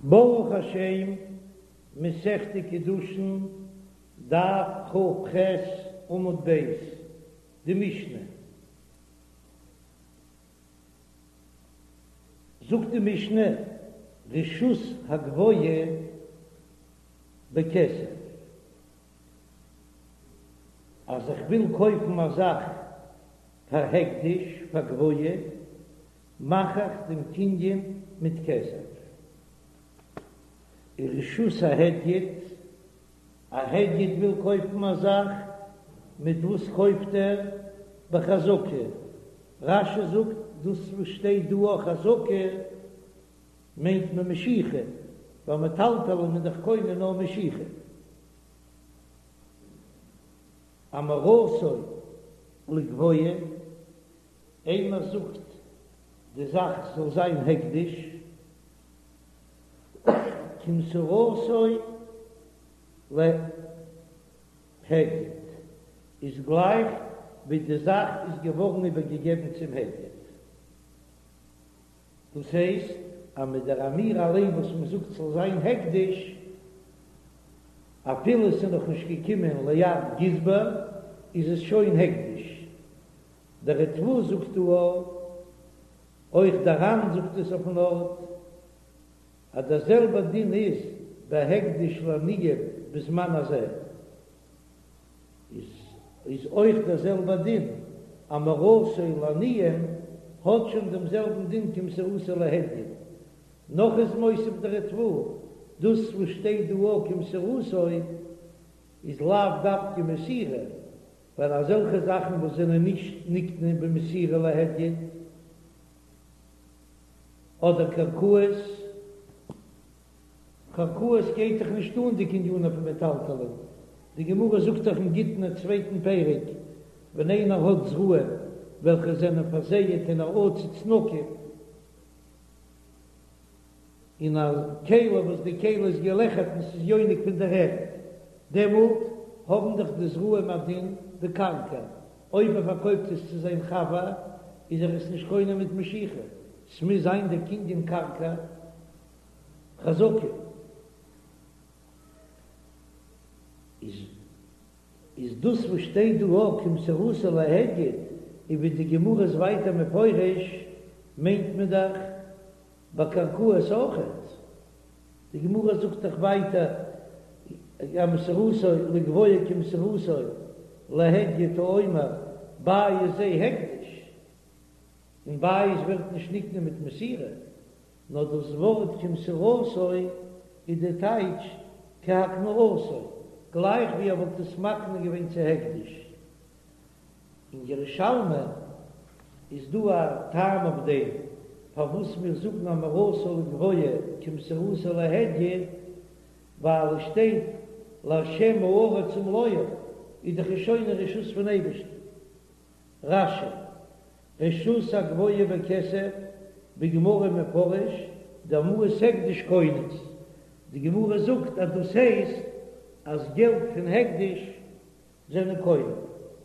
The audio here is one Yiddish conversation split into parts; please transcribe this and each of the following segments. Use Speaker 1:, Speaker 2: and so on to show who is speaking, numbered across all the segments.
Speaker 1: ברוך השם, מסכת קידושין, דף כ"ח עמוד ב', די משנה. זאגט די משנה, רשות הגבוה בכסף, אז איך וויל קויפן א זאך פאר הקדש, פאר גבוה, מאך איך דעם קנין מיט כסף. ורשות ההדיוט, א הדיוט וויל קויפן א זאך, מיט וואס קויפט ער? בחזקה. רש"י זאגט, דאס וואס שטייט דא אויך חזקה, מיינט מען משיכה, ווייל מטלטלין איז דאך קונה נאר משיכה. אמירתו לגבוה. איינער זאגט די זאך זאל זיין הקדש, כמסירתו להדיוט, איז גלייך ווי די זאך איז געווארן איבערגעגעבן צום הדיוט. דאס הייסט אז מיט דער אמירה אליין וואס מען זאגט ס'זאל זיין הקדש, אפילו עס איז נאכנישט געקומען ליד גזבר, איז עס שוין הקדש. דער ריטב"א זאגט דא אויך דער ר"ן זאגט עס אויפן ארט, אז דער זעלבער דין איז ביי הקדש לעניים בזמן הזה, איז איז אויך דער זעלבער דין, אמירתו לעניים האט שוין דעם זעלבן דין כמסירתו להדיוט. נאך איז מוסיף דער ריטב"א, דאס וואס שטייט דא אויך כמסירתו איז לאו דווקא מסירה, ווייל אזעלכע זאכן וואס זענען נישט נקנה במסירה להדיוט, אדער קרקעות, קרקעות גייט דאך נישט אן די קנינים פון מטלטלין, די גמרא זאגט דאך אין גיטין אין צווייטן פרק, ווען איינער האט זרעים וועלכע זענען פארזייעט אין א עציץ נקוב, אין א כלי וואס די כלי איז געלעכערט און ס'איז יונק פון דער ערד, דעמאלט האבן דאך די זרעים א דין ווי קרקע, אויב ער פארקויפט עס צו זיין חבר איז ער עס נישט קונה מיט משיכה, ס'מוז זיין דער קנין קרקע חזקה. איז איז דאס וואס שטייט דא אויך כמסירתו להדיוט, און ווי די גמרא איז ווייטער מפרש, מיינט מען דאך ביי קרקעות אויכעט, די גמרא זאגט דאך ווייטער אמירתו לגבוה כמסירתו להדיוט האומר בית זה הקדש, און בית ווערט נישט נקנה מיט מסירה, נאר דאס ווארט כמסירתו איז די טייטש כהקנאתו, גלייך ווי ער וואלט עס מקנה געווען צו הקדש. אין ירושלמי איז דא א טעם אויף דעם פארוואס מיר זאגן אמירתו לגבוה כמסירתו להדיוט, ווייל עס שטייט להשם הארץ ומלואה, איז דאך עס שוין אין רשות פון אייבערשטן. רש"י, רשות הגבוה בכסף, בגמרא מפרש, דמעות הקדש קונות, די גמרא זאגט אז דאס הייסט אז געלט פון הקדש זענען קונה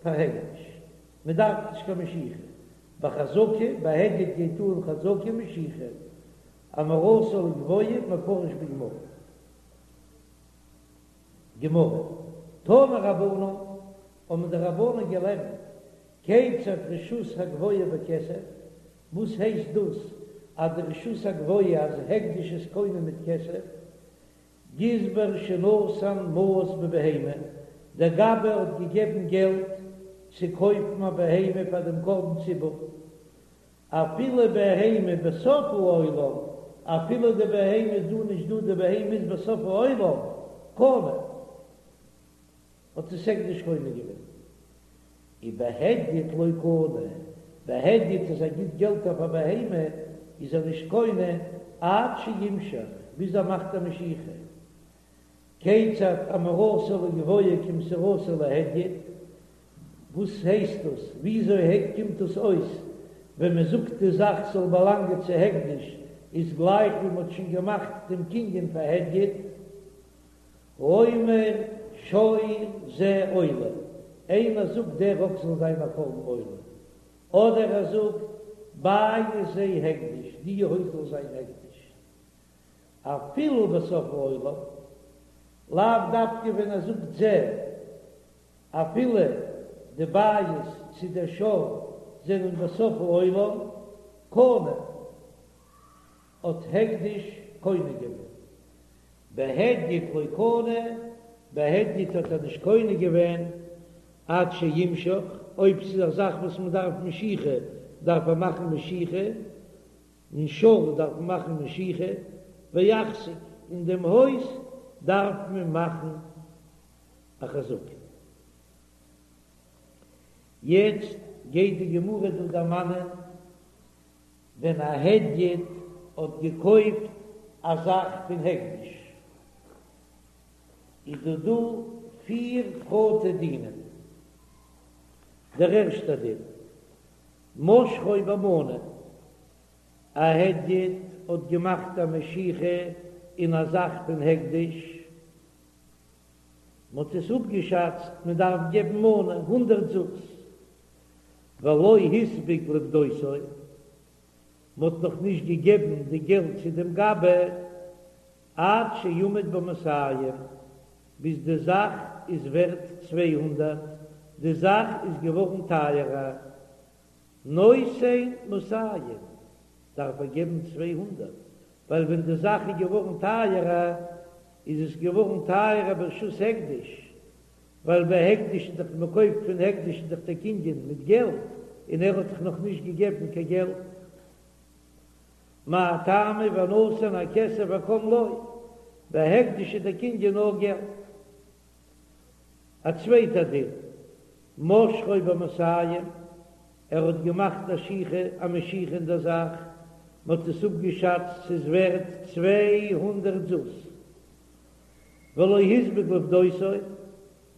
Speaker 1: פאר הקדש, מען דארף נישט קיין משיכה, בחזקה, ביי הדיוט גייט אן חזקה משיכה, אמירתו לגבוה מפרש בגמרא. גמרא, תנו רבנן, האבן די רבנן געלערנט, כיצד רשות הגבוה בכסף, וואס הייסט דאס אז די רשות הגבוה אז הקדש איז קונה מיט כסף, גזבר שנתן מעות בבהמה, דער גבאי האט געגעבן געלט צו קויפן א בהמה פאר דעם קרבן ציבור, אפילו בהמה בסוף העולם, אפילו די בהמה איז דא נישט דא, די בהמה איז בסוף העולם, קנה, האט עס הקדש קונה געווען. ובהדיוט לא קנה, בהדיוט אז ער גיט געלט אויף א בהמה איז ער נישט קונה עד שימשוך, ביז ער מאכט א משיכה. כיצד אמירתו לגבוה כמסירתו להדיוט, וואס הייסט דאס? וויאזוי קומט דאס אויס ווען מען זאגט די זאך זאל באלאנגען צו הקדש איז גלייך ווי מען האט שוין געמאכט דעם קנין פאר הדיוט? האומר שור זה עולה, איינער זאגט דער אקס זאל זיין א קרבן עולה, אדער ער זאגט בית זה הקדש, די הויז זאל זיין הקדש. אפילו בסוף העולם, לאו דווקא ווען ער זאגט זה, אפילו די בית צו דער שור זענען בסוף העולם, קנה, האט הקדש קונה געווען. בהדיוט לא קנה, בהדיוט האט ער נישט קונה געווען עד שימשוך, אויב ס'איז א זאך וואס מ'דארף משיכה דארף ער מאכן משיכה, און שור דארף מען מאכן משיכה, ויחזיק, אין דעם הויז דארף מען מאכן א חזקה. יעצט גייט די גמרא דא דערמאנען ווען א הדיוט האט געקויפט א זאך פון הקדש, איז דא דא פיר פרטי דינים. דער ערשטער דין, משכו במנה, א הדיוט האט געמאכט א משיכה אין א זאך פון הקדש, מען האט עס אפגעשאצט מען דארף געבן מנה, הונדרעט זוז, ולא הספיק לפדותו, מען האט נאך נישט געגעבן די געלט צו דעם גבאי, עד שעמד במאתים, ביז די זאך איז ווערט 200, די זאך איז געווארן טייערער, נותן מאתים, דארף ער געבן 200, ווייל ווען די זאך איז געווארן טייערער, איז עס געווארן טייערער ברשות הקדש, ווייל ביי הקדש איז דאך מען קויפט פון הקדש איז דאך דער קנין מיט געלט, און ער האט דאך נאך נישט געגעבן קיין געלט. מאי טעמא ונתן הכסף וקם לו, ביי הקדש איז דער קנין נאר געלט. א צווייטע דין, משכו במאתים, ער האט געמאכט א שיכה, א משיכה אין דער זאך, מען האט עס אפגעשאצט ס'איז ווערט 200 זוז. ולא הספיק לפדותו,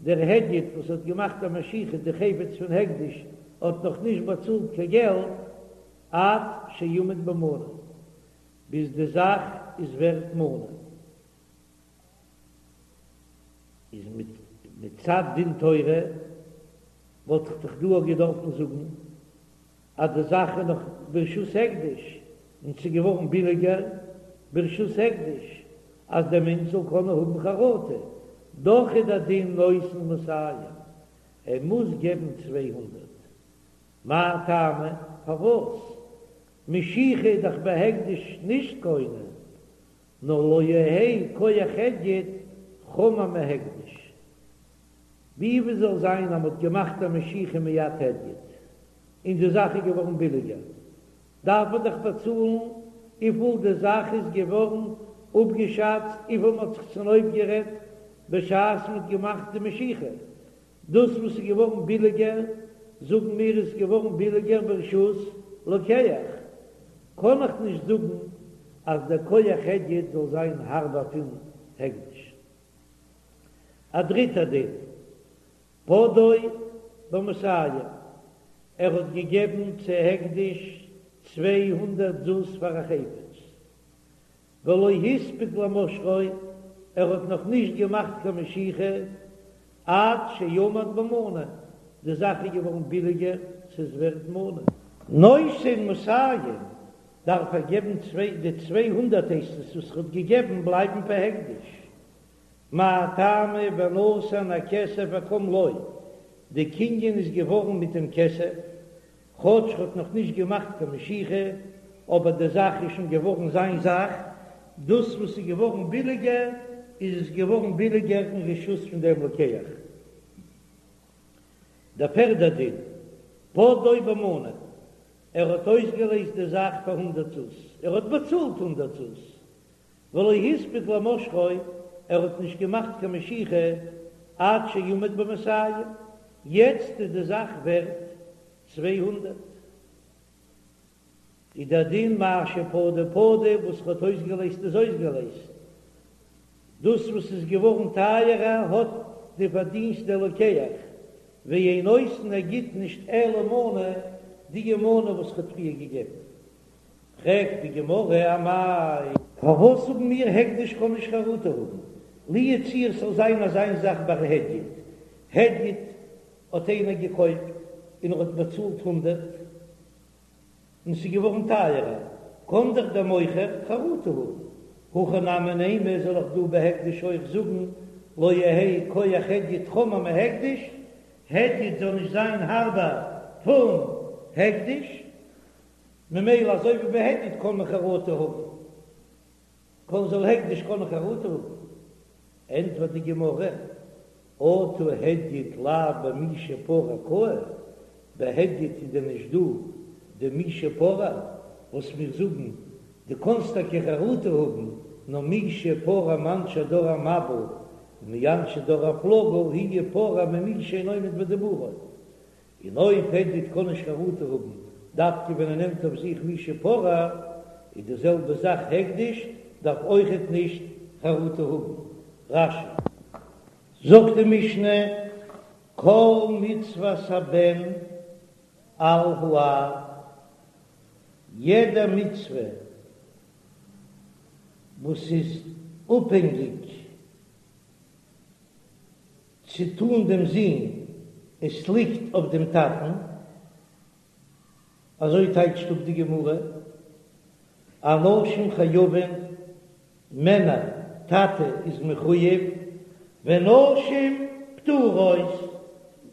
Speaker 1: דער הדיוט וואס האט געמאכט א משיכה די חפץ פון הקדש האט נאך נישט באצאלט קיין געלט עד שעמד במנה, ביז די זאך איז ווערט מנה. איז מצד דין תורה וואלט איך דאך דא אויך געדארפן זאגן אז די זאך איז נאך ברשות הקדש און ס'איז געווארן ביליגער ברשות הקדש אז דער מענטש זאל קענען האבן חרטה, דאך איז דער דין נותן מאתים, ער מוז געבן 200. מאי טעמא? פארוואס? משיכה איז דאך בהקדש נישט קונה, נאר לא יהא כח הדיוט חמור מהקדש. ווי ווי זאל זיין אז מ'האט געמאכט א משיכה מיד הדיוט און די זאך איז געווארן ביליגער, דארף מען דאך באצאלן וויפיל די זאך איז געווארן אפגעשאצט, וויפיל מ'האט זיך צונויפגערעדט בשעת מ'האט געמאכט די משיכה. דאס וואס איז געווארן ביליגער, זאגן מיר איז געווארן ביליגער ברשות לוקח, קען איך נישט זאגן אז דער כח הדיוט זאל זיין הארבער פון הקדש. א דריטער דין, פדאו במאתים, ער האט געגעבן צו הקדש 200 זוז פאר א חפץ, ולא הספיק למשכו, ער האט נאך נישט געמאכט קיין משיכה, עד שעמד במנה, די זאך איז געווארן ביליגער, ס'איז ווערט מנה. נותן מאתים, דארף ער געבן צוויי, די 200 הייסט עס וואס ער האט געגעבן בלייבן פאר הקדש. מאי טעמא ונתן הכסף וקם לו, די קנין איז געווארן מיט דעם כסף, כאטש ער האט נאך נישט געמאכט קיין משיכה, אבער די זאך איז שוין געווארן זיין זאך, דאס וואס איז געווארן ביליגער איז עס געווארן ביליגער אין רשות פון דעם לוקח. דער פערדער דין, פדאו במנה, ער האט אויסגעלעזט די זאך פאר הונדערט זוז, ער האט באצאלט הונדערט זוז, ולא הספיק למשכו, ער האט נישט געמאכט קיין משיכה עד שעמד במאתים, יעצט איז די זאך ווערט 200, איז דער דין מה שפדה פדה, וואס ער האט אויסגעלעזט איז אויסגעלעזט, דאס וואס איז געווארן טייערער האט די פארדינסט דער לוקח, ואין נותן ער גיט נישט אלא מנה, די מנה וואס ער האט פריער געגעבן. פרעגט די גמרא אמאי. פארוואס זאגן מיר הקדש קען נישט חרטה האבן? לו יצוייר ס'זאל זיין אזא זאך ביי הדיוט, הדיוט האט איינער געקויפט און ער האט באצאלט הונדרעט און ס'איז געווארן טייערער, קען דאך דער מוכר חרטה האבן. הכא נמי נימא זאל איך דא בהקדש אויך זאגן לא יהא כח הדיוט חמור מהקדש, הדיוט זאל נישט זיין הארבער פון הקדש, ממילא אזוי ווי ביי הדיוט קען מען חרטה האבן, קען זאל הקדש קענען חרטה האבן, ענטפערט די גמרא, אטו הדיוט לאו במי שפרע קאי, ביי הדיוט איז דען נישט דא די מי שפרע וואס מיר זאגן, דו קאנסט טאקע חרטה האבן, נאר מי שפרע מאנשי דור המבול ומאנשי דור הפלגה הוא יפרע ממי שאינו עומד בדיבורו, און אויב הדיוט קען נישט חרטה האבן דווקא ווען ער נעמט אויף זיך מי שפרע, איז די זעלבע זאך הקדש דארף אויכעט נישט חרטה האבן. רש"י. זאגט די משנה, כל מצוות הבן על האב, יעדע מצוה וואס איז אפהענגיק צו טאן דעם זון, עס ליגט אויף דעם טאטן, אזוי טייטשט אפ די גמרא, אנשים חייבין, מענער, טאטע איז מחויב, ונשים פטורות,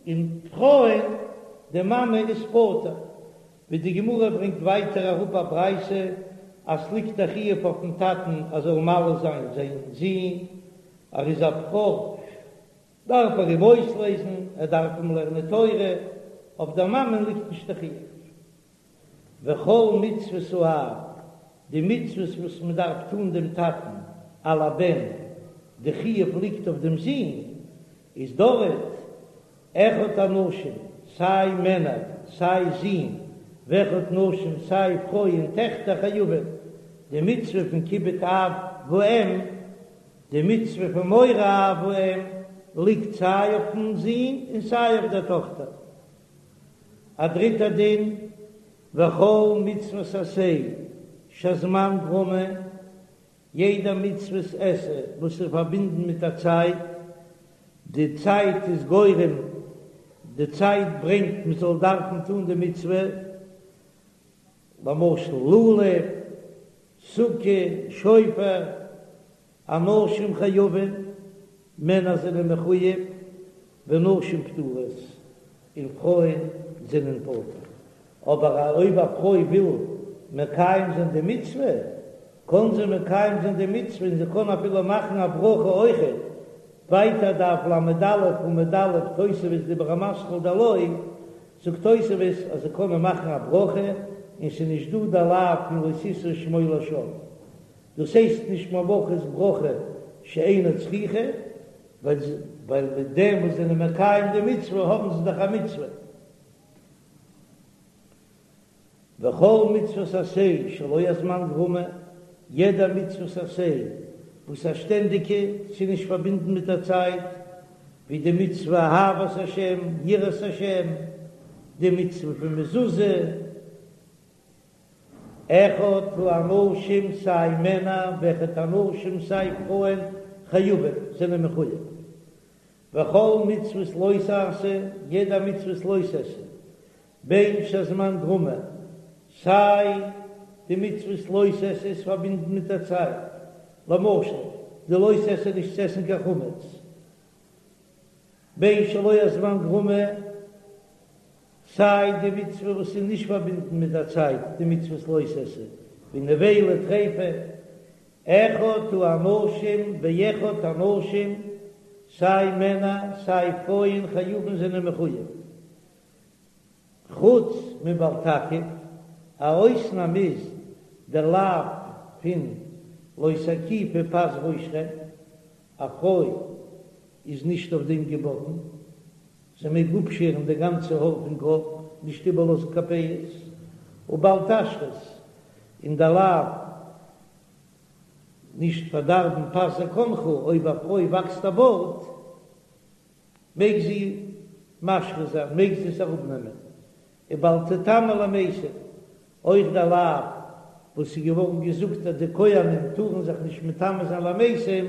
Speaker 1: און פרויען, די מאמע איז פטור, ווי די גמרא ברענגט ווייטער אראפ א ברייתא אז ס'ליגט א חיוב אויפן טאטן ער זאל מל זיין זיין זון, ער איז א בכור דארף ער אים אויסלעזן, ער דארף אים לערנען תורה, אויף דער מאמען ליגט נישט די חיוב. וכל מצוות האב, די מצוות וואס מען דארף טון דעם טאטן על הבן, די חיוב ליגט אויף דעם זון, איז דארט אחד אנשים, סיי מענער, סיי זין, ואחד נשים, סיי פרויען, טעכטער חייבים, די מצוה פון כיבוד אב ואם, די מצוה פון מורא אב ואם, ליגט סיי אויפן זון און סיי אויף דער טאכטער. א דריטער דין, וכל מצוות עשה שהזמן גרמא, יעדע מצוות עשה וואס איז פארבינדן מיט א צייט, די צייט איז גורם, די צייט ברענגט מען זאל דארפן טון די מצוה, למשל לולב, סוכה, שופר, אנשים חייבים, מענער זענען מחויב, ונשים פטורות, און פרויען זענען פטור. אבער אויב א פרוי וויל מקיים זיין די מצוה, קען זי מקיים זיין די מצוה און זי קען אפילו מאכן א ברכה אויכעט. ווייטער דף ל"א עמוד א', תוספות דיבור המתחיל דלא, זאגט תוספות אז זי קען מאכן א ברכה און ס'איז נישט דא די לאו פון לא תשא שמו לשווא. דאס הייסט נישט מברכת ברכה שאינה צריכה, ווייל מיט דעם וואס זענען מקיים די מצוה האבן זיי דאך א מצוה. וכל מצוות עשה שלא הזמן גרמא, יעדע מצוות עשה וואס א שטענדיגע, ס'איז נישט פארבינדן מיט א צייט, ווי די מצוה אהבת השם, יראת השם, די מצוה פון מזוזה, אחד האנשים סיי מענער ואחד הנשים סיי פרויען חייבים זענען מחויב. וכל מצוות לא תעשה, יעדע מצוות לא תעשה, בין שהזמן גרמא, סיי די מצוות לא תעשה איז פארבינדן מיט א צייט, למשל די לא תעשה נישט צו עסן קיין חמץ, בין שלא הזמן גרמא, סיי די מצוה וואס איז נישט פארבינדן מיט א צייט, די מצוות לא תעשה, ווי נבילה טריפה, אחד האנשים ואחד הנשים, סיי מענער סיי פרויען חייבין זענען מחויב, חוץ מבל תקיף, א אויסנאם איז דער לאו פון לא תקיפו פאת ראשכם, א פרוי איז נישט אויף דעם געבאטן, זי מעג אפשערן די גאנצע האר פון קאפ, נישט איבערלאזן קיין פאות, ובל תשחית, און דער לאו נישט פארדארבן פאת זקנך, אויב א פרוי וואקסט א בארד מעג זי משחית זיין, מעג זי עס אראפנעמען, ובל תטמא למתים, אויך דער לאו וואס איז געווארן געזאגט אז די כהנים טארן זיך נישט מטמא זיין למתים,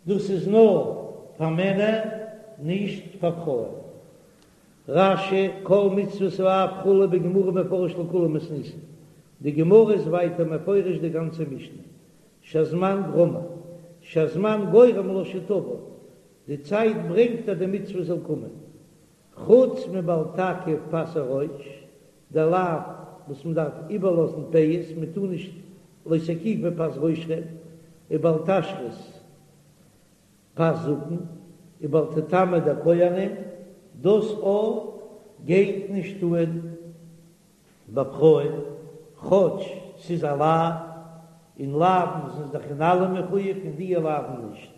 Speaker 1: דאס איז נאר פאר מענער, נישט פאר פרויען. רש"י, כל מצוות האב כו' בגמרא מפרש לכולה מתניתין, די גמרא איז ווייטער מפרש די גאנצע משנה. שהזמן גרמא, שהזמן גורם לה שתבא, די צייט ברענגט אז די מצוה זאל קומען. חוץ מבל תקיף פאת הראש, דער לאו וואס מען דארף איבערלאזן פאות, מען טאר נישט לא תקיפו פאת ראשכם, ובל תשחית פאת זקן, ובל תטמא די כהנים, דאס אויך גייט נישט אן ביי פרויען, כאטש ס'איז א לאו, און לאוין זענען זיך אין אלעם מחויב און די לאוין נישט.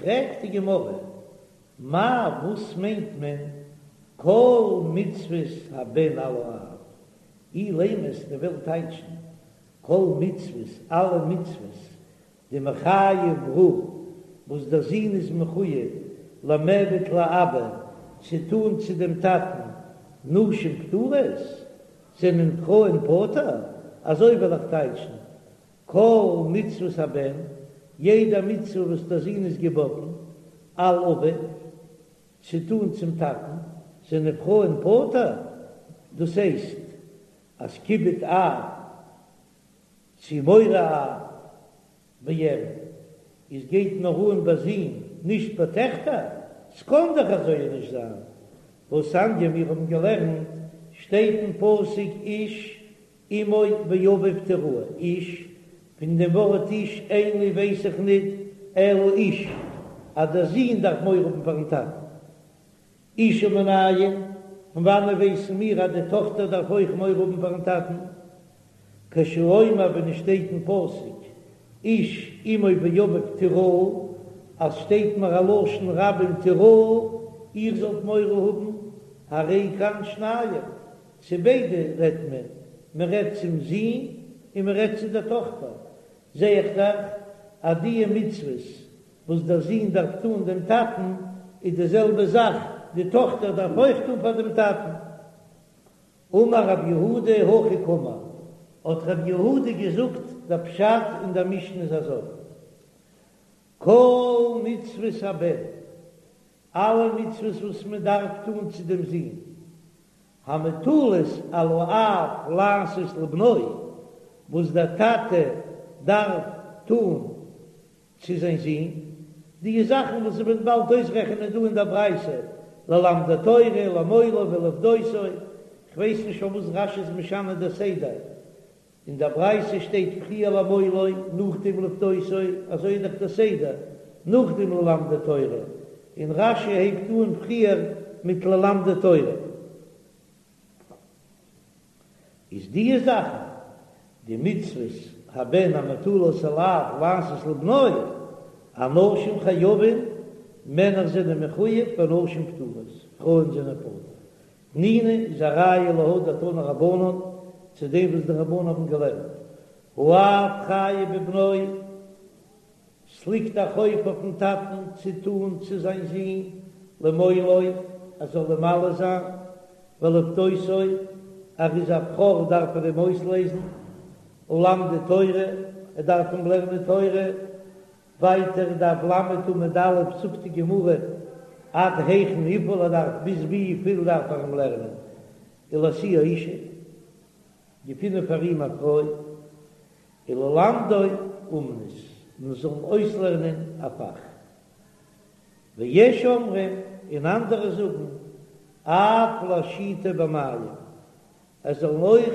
Speaker 1: פרעגט די גמרא, מאי וואס מיינט מען כל מצוות הבן על האב? אילימא וועסט וועלן טייטשן כל מצוות אלע מצוות דמיחייב ברא וואס דער זון איז מחויב למיעבד לאבא צו טאן צו דעם טאטן נשים פטורות זענען פרויען פטור, אזוי וועל איך טייטשן כל מצוות הבן, יעדע מצוה וואס דער זון איז געבאטן, על אביו, צו טאן צום טאטן, זענען פרויען פטור, דאס הייסט אז כיבוד אב צו מורא אב ואם איז גייט נאר אן ביי זין נישט ביי טעכטער, ס'קאן דאך אזוי נישט זיין, והתניא מיר האבן געלערנט שטייט אין פסוק איש אמו ואביו תיראו, איש, פון דעם ווארט איש אין לי ווייס איך ניט אלא איש אז דער זון דארף מורא האבן פארן טאטן. אשה מנין, פון וואנען ווייסן מיר אז די טאכטער דארף אויך מורא האבן פארן טאטן? כשהוא אומר ווען עס שטייט אין פסוק איש אמו ואביו תיראו, אז שטייט מיר א לשון רבים תיראו, איר זאלט מורא האבן, הרי כאן שניים, צו ביידע רעדט מען, מען רעדט צום זון און מען רעדט צו דער טאכטער, זע איך דאך אז דיע מצוות וואס דער זון דארף טאן דעם טאטן, איז די זעלבע זאך די טאכטער דארף אויך טאן פאר דעם טאטן. אמר רב יהודה הכי קאמר, האט רב יהודה געזאגט דער פשט אין דער משנה איז אזוי, כל מצוות הבן, אלע מצוות וואס מען דארף טאן צו דעם זון, המוטלות על האב לעשות לבנו, וואס דער טאטע דארף טאן צו זיין זון, די זאכן וואס מ'וועט באלד אויסרעכענען דא אין דער ברייתא, ללמדו תורה, למולו ולפדותו, כ'ווייס נישט פארוואס רש"י איז משנה דער סדר, אין דער ברייתא שטייט פריער למולו, נאכדעם לפדותו, אזוי איז דאך דער סדר, נאכדעם ללמדו תורה, און רש"י הייבט אן פריער מיט ללמדו תורה. איז דיע זאכן די מצוות הבן המוטלות על האב לעשות לבנו, אנשים חייבים, מענער זענען מחויב ונשים פטורות, פרויען זענען פטור. תנינא איז א ראיה להא דתנו רבנן, צו דעם וואס די רבנן האבן געלערנט, האב חייב בבנו, ס'ליגט א חוב אויפן טאטן צו טאן צו זיין זון למולו ער זאל אים מל זיין, ולפדותו, ער איז א בכור דארף ער אים אויסלעזן, וללמדו תורה, ער דארף אים לערנען תורה, ווייטער דף ל' עמוד א' זאגט די גמרא עד היכן וויפיל ער דארף ביז וויפיל דארף ער אים לערנען, ולהשיאו אשה, געפינען פאר אים א פרוי. וללמדו אומנות, מען זאל אים אויסלערנען א פאך. ויש אומרים, און אנדערע זאגן, אף להשיטו במים, ער זאל אים אויך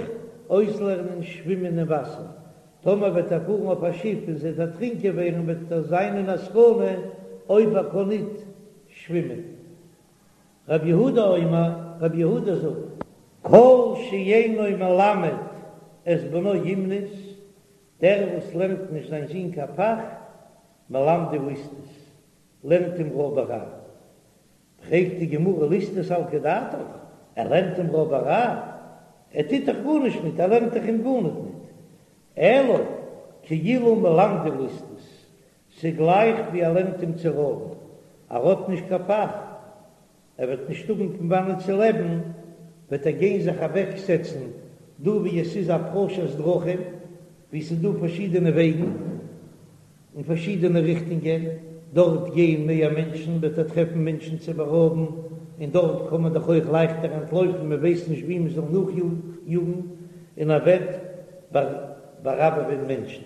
Speaker 1: אויסלערנען שווימען אין וואסער, טאמער וועט ער פארן אויף א שיף און זי וועט דערטרינקען ווערן וועט ער זיין אין א סכנה אויב ער קען ניט שווימען. רבי יהודה אומר, רבי יהודה זאגט, כל שאינו מלמד את בנו אומנות, דער וואס לערנט נישט זיין זון קיין פאך, מלמדו ליסטות, לערנט אים רויבעריי. פרעגט די גמרא ליסטות סלקא דעתך, ער לערנט אים רויבעריי? ער טוט דאך גארנישט ניט, ער לערנט דאך אים גארניט ניט. אלא כאילו מלמדו ליסטות, ס'גלייך ווי ער לערנט אים צו רויבן, ער האט נישט קיין פאך, ער וועט נישט האבן פון וואנען צו לעבן, וועט ער גיין זיך אוועקזעצן דא ווי עס איז א פרשת דרכים, ווי ס'איז דא פארשידענע וועגן אין פארשידענע ריכטונגען, דארט גייען מער מענטשן, וועט ער טרעפן מענטשן צו בארויבן, און דארט קען מען דאך אויך לייכטער אנטלויפן, מען ווייסט נישט ווי מען זאל נאכיאגן, און ער וועט באראבעווען מענטשן.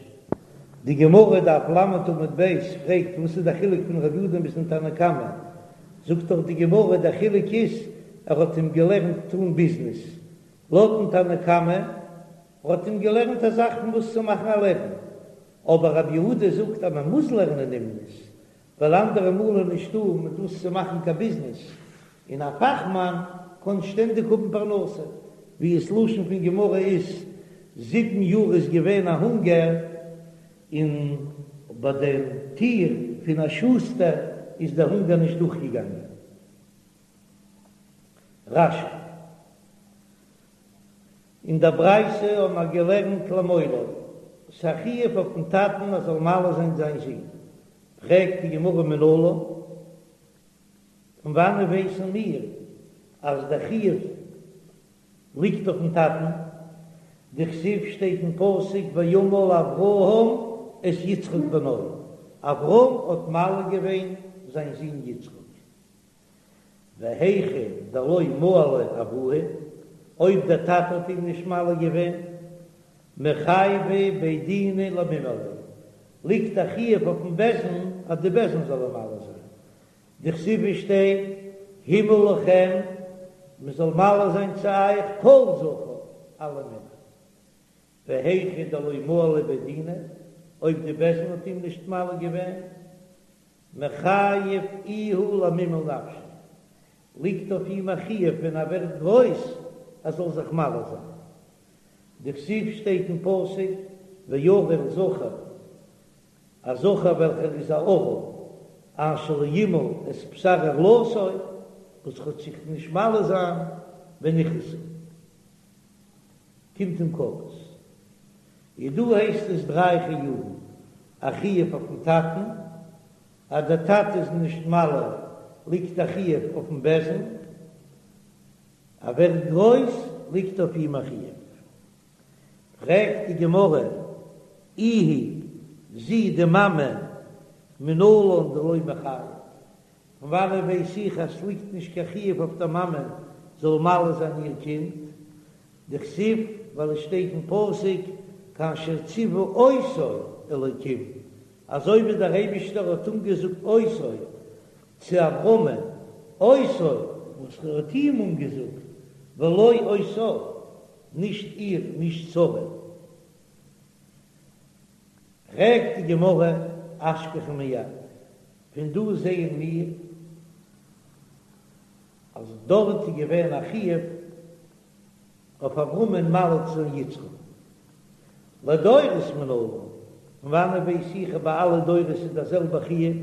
Speaker 1: די גמרא, דף ל' עמוד ב', פרעגט וואס איז די חילוק פון רב יהודה ביזן תנא קמא, זאגט דאך די גמרא דער חילוק איז ער האט אים געלערנט טון ביזנעס, לויטן תנא קמא האט אים געלערנט א זאך פון וואס צו מאכן א לעבן, אבער רב יהודה זאגט אז מען מוז לערנען אומנות, ווייל אנדערע מאל איז נישטא מיט וואס צו מאכן קיין ביזנעס, און א פאכמאן קען שטענדיג האבן פרנסה, ווי עס לשון פון גמרא איז, זיבן יאר איז געווען א הונגער, און ביי דעם טיר פון א שוסטער איז דער הונגער נישט דורכגעגאנגען. רש"י. אין דער ברייתא האבן מיר געלערנט למולו, ס'איז א חיוב אויפן טאטן ער זאל מל זיין זיין זון. פרעגט די גמרא מנלן, פון וואנען ווייסן מיר אז דער חיוב ליגט אויפן טאטן? דכתיב שטייט אין פסוק וימל אברהם את יצחק בנו, אברהם האט מל געווען זיין זון יצחק. והיכא דלא מהליה אבוה, אויב דער טאטע האט אים נישט מל געווען, מיחייבי בי דינא למימהליה, ליגט א חיוב אויפן בית דין אז די בית דין זאל אים מל זיין, דכתיב שטייט המול לכם, מען זאל מל זיין צו אייך כל זכר, אלע מענער. והיכא דלא מהליה בי דינא, אויב די בית דין האט אים נישט מל געווען, מיחייב איהו למימהל נפשיה, ליגט אויף אים א חיוב ווען ער ווערט גרויס ער זאל זיך מל זיין. דכתיב שטייט אין פסוק וערל זכר, א זכר וועלכער איז א ערל, אשר לא ימול את בשר ערלתו, וואס וועט זיך נישט מל זיין ונכרתה, קומט אים כרת. איז דא הייסט עס דריי חיובים, א חיוב אויפן טאטן, אז דער טאטע איז נישט מל ליגט א חיוב אויפן בית דין, ער ווערט גרויס ליגט אויף אים א חיוב. פרעגט די גמרא, איהי, זי די מאמע, מנלן דלא מיחייב, פון וואנעט ווייס איך אז ס'ליגט נישט קיין חיוב אויף דער מאמע זאל מל זיין איר קינד? דכתיב, ווייל עס שטייט אין פסוק כאשר ציוה אותו אלוקים, אזוי ווי דער אייבישטער האט אנגעזאגט אותו צו אברהמען, אותו, וואס ער האט אים אנגעזאגט, ולא אותה, נישט איר, נישט שרה. פרעגט די גמרא, אשכחן מיד, פון דא זעען מיר אז דארט איז געווען א חיוב אויף אברהמען מל צו זיין יצחק לדורות מנלן, פון וואנעט ווייס איך אז ביי אלע דורות איז דער זעלבער חיוב,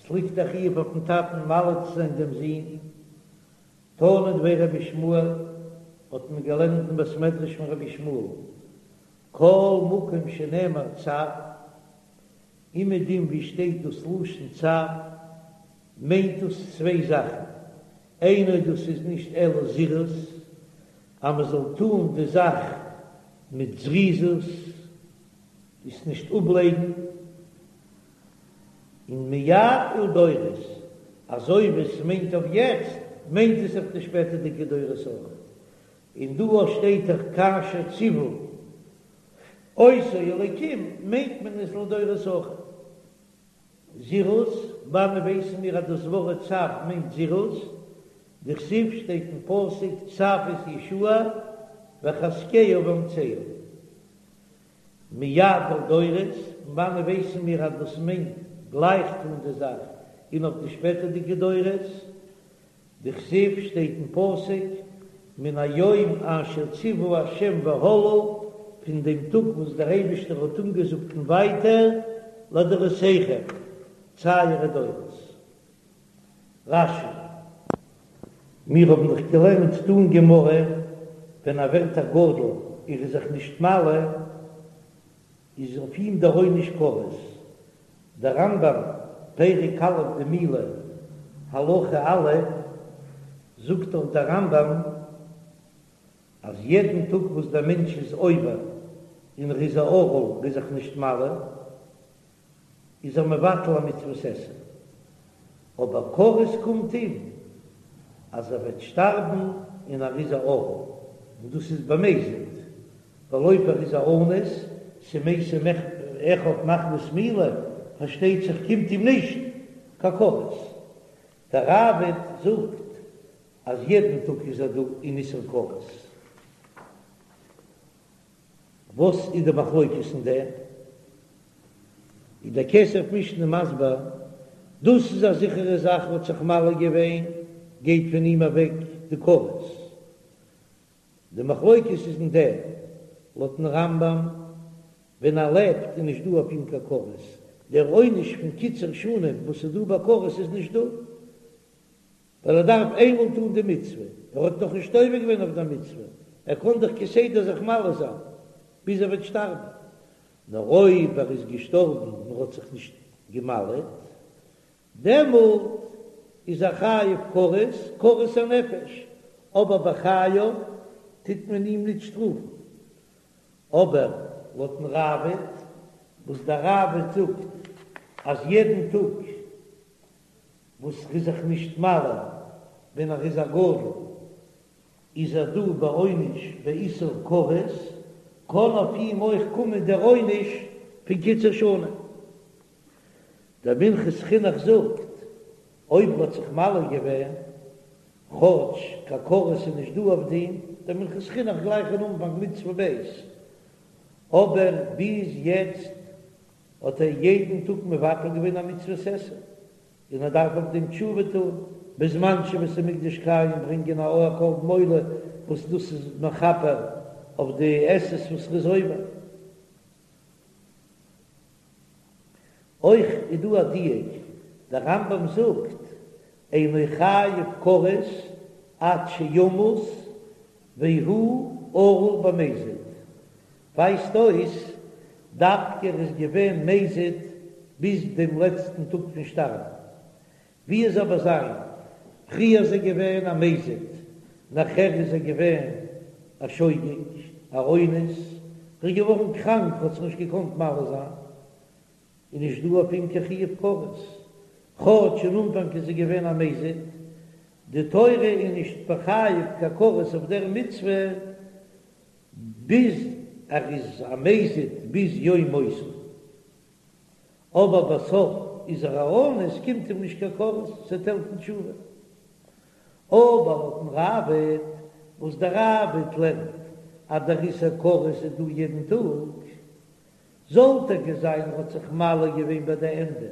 Speaker 1: ס'ליגט א חיוב אויפן טאטן מל צו זיין דעם זון, תנא דבי רבי ישמעאל, האט מען געלערנט אין בית מדרש פון רבי ישמעאל, כל מקום שנאמר צו, אומעדום ווי שטייט דאס לשון צו, מיינט דאס צוויי זאכן, אינו דאס איז נישט אלא זירוז, אז מען זאל טון די זאך מיט זריזות, עס נישט אפלייגן, און מיד ולדורות, אזוי ווי עס מיינט אויף יעצט, מיינט עס אויף די שפעטערדיגע דורות אויך, און דא אויך שטייט דאך כאשר ציוה אותו אלוקים מיינט מען עס לדורות אויך. זירוז, וואנען ווייסן מיר אז דאס ווארט צו מיינט זירוז? דכתיב שטייט אין פסוק צו את יהושע וחזקהו ואמצהו. מיד ולדורות, פון וואנען ווייסן מיר אז דאס מיינט גלייך טון די זאך און אויף די שפעטערדיגע דורות? דכתיב שטייט אין פסוק מן היום אשר ציוה ה' והלאה, פון דעם טאג וואס דער אייבישטער האט אנגעזאגט און ווייטער, לדורותיכם, צו אייערע דורות. רש"י. מיר האבן דאך געלערנט דא אין גמרא, ווען ער ווערט א גדול און איז זיך נישט מל, איז אויף אים דער עונש כרת. דער רמב"ם, פרק א' דמילה, הלכה א', זאגט דאך דער רמב"ם אז יעדן טאג וואס דער מענטש איז עובר און ער איז א ערל איז זיך נישט מל, איז ער מבטל א מצוות עשה, אבער כרת קומט אים אז ער וועט שטארבן און ער איז א ערל, און דאס איז במזיד, ווייל אויב ער איז א אנוס, ס'מתו. אחיו מחמת מילה, פארשטייט זיך קומט אים נישט קיין כרת. דער ראב"ד זאגט אז יעדן טאג איז ער דא אין איסור כרת. וואס איז די מחלוקת אין דעם? איז דער כסף משנה מסביר, דאס איז א זיכערע זאך האט זיך מל געווען, גייט פון אים אוועק די כרת. די מחלוקת איז אין דעם, לויטן רמב"ם, ווען ער לעבט איז נישט דא אויף אים קיין כרת, דער עונש פון קיצור שנים וואס איז דא ביי כרת איז נישט דא, ווייל ער דארף איינמאל טון די מצוה, ער האט נאך נישט עובר געווען אויף דער מצוה, ער קען דאך כסדר זיך מל זיין ביז ער וועט שטארבן, נאר אויב ער איז געשטארבן און ער האט זיך נישט געמל'עט, דעמאלט איז ער חייב כרת, כרת הנפש, אבער בחייו טוט מען אים ניט שטראפן. אבער לויטן ראב"ד, וואס דער ראב"ד זאגט אז יעדן טאג וואס ר'איז זיך נישט מל ווען ער איז א גדול, איז ער דא בעונש באיסור כרת, קען אויף אים אויך קומען דער עונש פון קיצור שנים. דער מנחת חינוך זאגט, אויב ר'האט זיך מל געווען, כאטש קיין כרת איז נישט דא אויף דעם, דער מנחת חינוך גלייך אין אנפאנג מצוה ב', אבער ביז יעצט האט ער יעדן טאג מבטל געווען א מצוות עשה, און ער דארף אויף דעם תשובה טון, בזמן שבית המקדש קיים ברענגען א קרבן עולה וואס דאס איז מכפר אויף די עשות וואס ר'איז עובר. אויך איז דא א דיוק, דער רמב"ם זאגט, אינו חייב כרת עד שימות והוא ערל במזיד, ווייזט אויס דווקא ער איז געווען מזיד ביז דעם לעצטן טאג פון שטארבן, ווי עס אבער זיין, פריער איז ער געווען א מזיד, נאכער איז ער געווען א שוגג, א אונס, ער איז געווארן קראנק, האט זיך נישט געקאנט מל זיין, איז נישט דא אויף אים קיין חיוב כרת, כאטש אין אנפאנג איז ער געווען א מזיד, די תורה איז נישט מחייב קיין כרת אויף דער מצוה ביז ער איז א מזיד ביז יום מותו. אבער בסוף איז ער א אונס, קומט אים נישט קיין כרת, ס'וועט העלפן תשובה. אבער לויטן ראב"ד, וואס דער ראב"ד לערנט אז דער איסור כרת איז דא יעדן טאג, זאל טאקע זיין ער האט זיך מל געווען ביי די ענדע,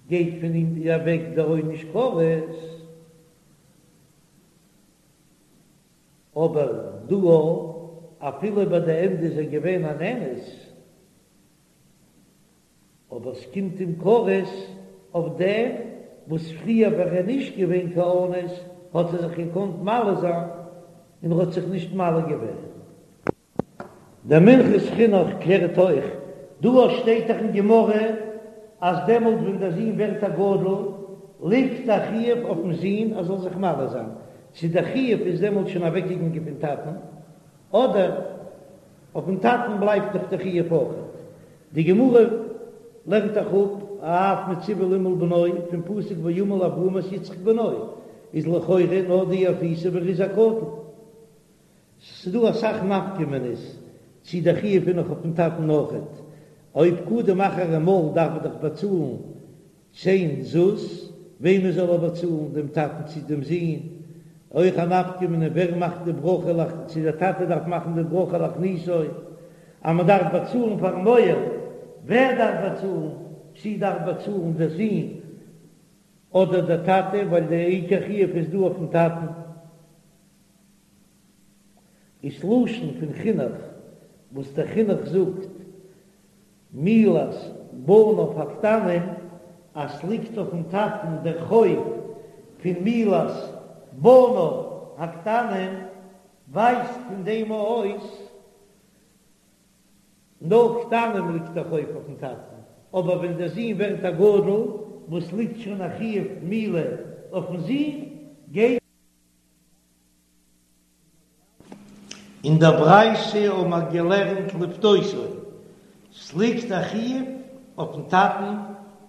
Speaker 1: גייט פון אים אוועק דער עונש כרת. אבער דא אפילו ביי די ענדע איז ער געווען אן אונס, אבער ס'קומט אים כרת אויף דעם וואס פריער ווען ער איז נישט געווען קיין אונס האט ער זיך געקאנט מל זיין און ער האט זיך נישט מל געווען. דער מנחת חינוך קלערט אויך, דא שטייט דאך אין גמרא אז דעמאלט ווען דער זון ווערט א גדול ליגט א חיוב אויפן זון ער זאל זיך מל זיין, צו דער חיוב איז דעמאלט שוין אוועקגעגאנגען פון טאטן אדער אויפן טאטן בלייבט נאך די חיוב אויכעט. די גמרא לערנט דאך אפ האב מצווה למעול בנו פון פסוק וימל אברהם את יצחק בנו, איז לכאורה נאר דאי אפייתיה ווען ער איז א קטן. ס'דא אסאך נפקא מינה'ס צי דער חיוב איז נאך אויפן טאטן אויכעט. אויב קדם אחר ומל דארף ער דאך באצאלן צען זוז, וועמען זאל ער באצאלן, דעם טאטן צי דעם זון? אויך א נפקא מינה ווער מאכט די ברכה להכ צי דער טאטע דארף מאכן די ברכה להכניסו, אז מען דארף באצאלן פארן מוהל, ווער דארף באצאלן, צי דארף באצאלן דער זון אדער דער טאטע, ווייל דער עיקר חיוב איז דא אויפן טאטן. איז לשון פון חינוך וואס דער חינוך זאגט מילת בניו הקטנים אז ס'ליגט אויפן טאטן דער חוב פון מילת בניו הקטנים ווייזט פון דעם אויס נאר קטנים ליגט דער חוב אויפן טאטן, אבער ווען דער זון ווערט א גדול וואס ליגט שוין א חיוב מילה אויפן זון גייט אין דער ברייתא האבן מיר געלערנט לפדותו, ס'ליגט א חיוב אויפן טאטן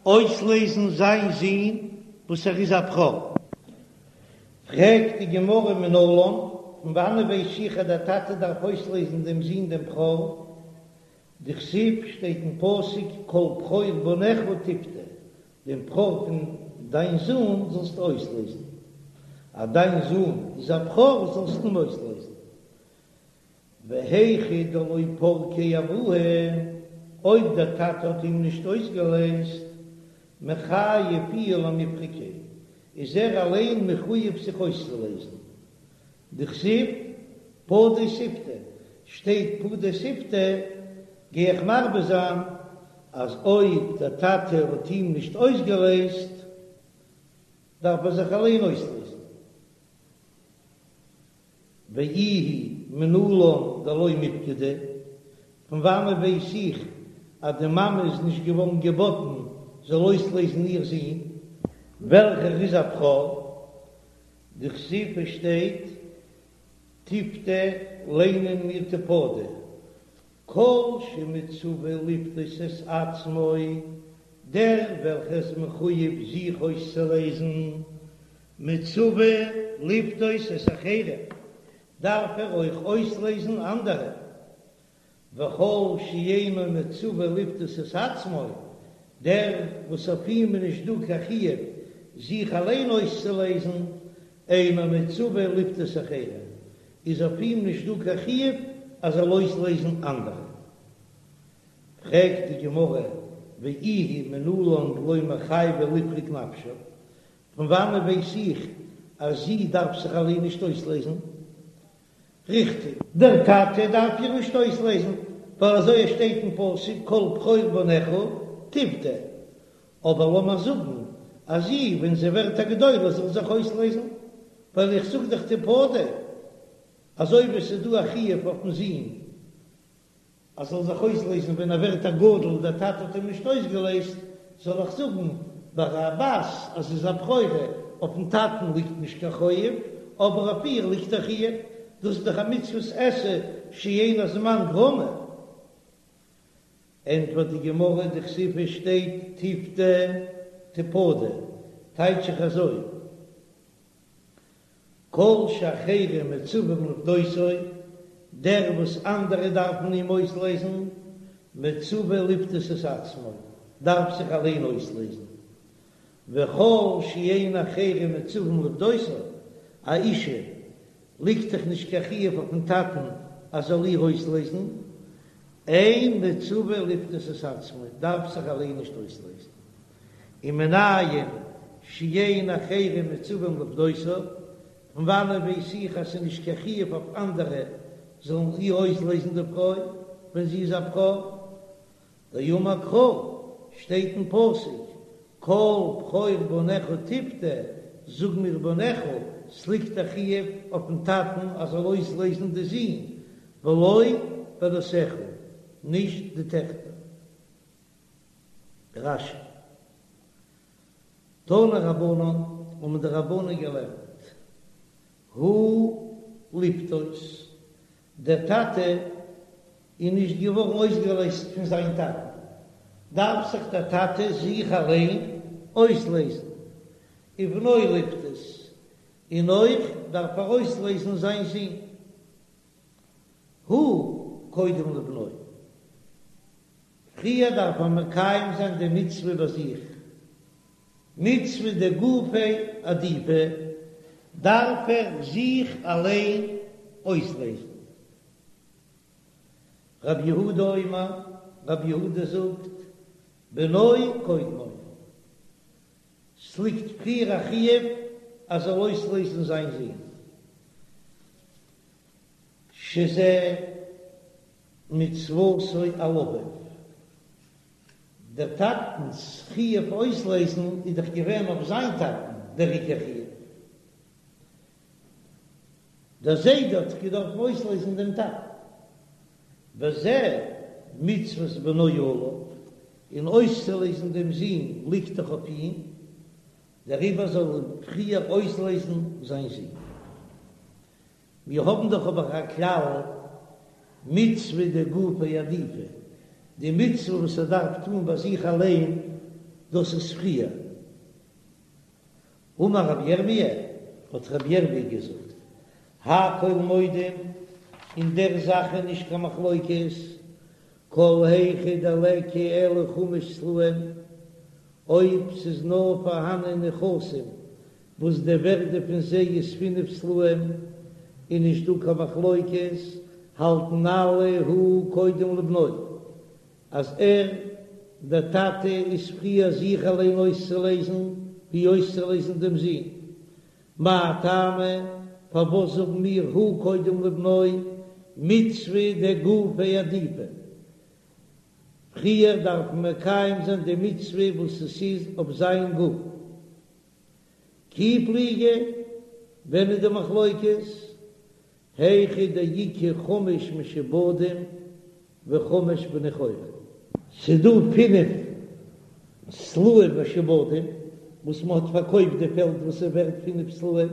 Speaker 1: אויסלעזן זיין זון וואס ער איז א בכור. פרעגט די גמרא מנלן, פון וואנען ווייס איך אז דער טאטע דארף אויסלעזן דעם זון דעם בכור? דכתיב שטייט אין פסוק כל בכור בניך תפדה, דעם בכור פון דיין זון זאלסטו אויסלעזן, אז דיין זון איז א בכור זאלסטו אים אויסלעזן. והיכא דלא פרקיה אבוה, אויב דער טאטע האט אים נישט אויסגעלעזט, מיחייב איהו למיפרקיה, איז ער אליין מחויב זיך אויסצולעזן. דכתיב, פדה תפדה, שטייט פדה תפדה, גיי איך מרבה זיין אז אויב דער טאטע האט אים נישט אויסגעלעזט, דארף ער זיך אליין אויסלעזן. ואיהי מנלן דלא מיפקדה, פון וואנען ווייס איך אז די מאמע איז נישט געווארן געבאטן זאל אויסלעזן איר זון וועלכער איז א בכור? דכתיב עס שטייט תפדה ליינען מיר תפדה, כל שמצווה לפדות את עצמו, דער וועלכער איז מחויב זיך אויסצולעזן, מצווה לפדות את אחרים, דארף ער אויך אויסלעזן אנדערע, וכל שאינו מצווה לפדות את עצמו, דער וואס אויף אים איז נישט דא קיין חיוב זיך אליין אויסצולעזן, אינו מצווה לפדות אחרים, איז אויף אים נישט דא קיין חיוב אז זאל אויסלעזן אנדערע. פרעגט די גמרא, ואיהי מנלן דלא מיחייבא לפרוק נפשה, פון וואנען ווייס איך אז זי דארף זיך אליין נישט אויסלעזן? ריכטיג, דער טאטע דארף איר נישט אויסלעזן, ווייל אזוי עס שטייט אין פסוק כל בכור בניך תפדה, אבער לאמיר זאגן אז זי ווען זי ווערט א גדולה זאל זיך אויסלעזן, ווייל איך זאג דאך תפדה, אזוי ווי עס איז דא א חיוב אויפן זון אז זאל זיך אויסלעזן ווען ער ווערט א גדול און דער טאטע האט אים נישט אויסגעלעזט, זאל איך זאגן ביי א בת אז זי איז א בכורה, אויפן טאטן ליגט נישט קיין חוב, אבער אויף איר ליגט א חיוב, דאס איז דאך א מצוות עשה שאין הזמן גרמא. ענטפערט די גמרא, דכתיב עס שטייט תפדה תפדה, טייטש איך אזוי, כל שאחרים מצווים לפדותו, דער וואס אנדערע דארפן אים אויסלעזן, מצווה לפדות את עצמו, דארף זיך אליין אויסלעזן, וכל שאין אחרים מצווים לפדותו, א אישה ליגט דאך נישט קיין חיוב אויפן טאטן אז זאל איר אויסלעזן, אין מצווה לפדות את עצמו, דארף זיך אליין נישט אויסלעזן. ומנין שאין אחרים מצווים לפדותה, פון וואנען ווייס איך אז ס'איז נישט קיין חיוב אויף אנדערע זאלן איר אויסלעזן די פרוי ווען זי איז א בכור? דאמר קרא, שטייט אין פסוק, כל בכור בניך תפדה, זאג מיר בניך, ס'ליגט א חיוב אויפן טאטן אז זאל אויסלעזן די זין, ולא בנותיך, נישט די טעכטער. רש"י. תנו רבנן, האבן די רבנן געלערנט, הוא לפדות, דער טאטע איז נישט געווארן אויסגעלייזט פון זיין טאטן, דארף זיך דער טאטע זיך אליין אויסלייזן, ובנו לפדות, און אויך דארף ער אויסלייזן זיין זון, הוא קודם לבנו. פריער דארף מען מקיים זיין די מצוה ביי זיך, מצוה דגופיה עדיפא, דארף ער זיך אליין אויסלעזן. רב יהודה אומר, רב יהודה זאגט, בנו קודמו, ס'ליגט פריער א חיוב אז זאל אויסלעזן זיין זון, שזה מצוותו על אביו, דער טאטנ'ס חיוב אויסלעזן איז דאך געווען אויף זיין טאטן דער עיקר חיוב, דער זיידע האט דאך געדארפן אויסלעזן דעם טאטן, וזה מצוות בנו עליו, און אויסצולעזן דעם זון ליגט דאך אויף אים, דעריבער זאל ער פריער אויסלעזן זיין זון. מיר האבן דאך אבער א כלל, מצוה דגופיה עדיפא, די מצוה וואס ער דארף טון ביי זיך אליין, דאס איז פריער. אמר רבי ירמי', האט רבי ירמי' געזאגט, הכל מודים, אין דער זאך איז נישט קיין מחלוקת, כל היכא דליכא אלא חמש סלעים, אויב ס'איז נאר פארהאנען נכסים וואס די ווערדע פון זיי איז פינף סלעים, און נישט דא קיין מחלוקת, האלטן אלע הוא קודם לבנו, אז ער, דער טאטע, איז פריער זיך אליין אויסצולייזן ווי אויסצולייזן דעם זון. מאי טעמא, פארוואס זאגן מיר הוא קודם לבנו, מצוה דגופיה עדיפא? פריער דארף מען מקיים זיין די מצוה וואס עס איז אויף זיין גוף. כי פליגי, ווען איז די מחלוקת? היכא דאיכא חמש משועבדים וחמש בני חורין. ס'איז דא פינף סלעים משועבדים וואס מ'האט פארקויפט די פעלד וואס איז ווערט פינף סלעים,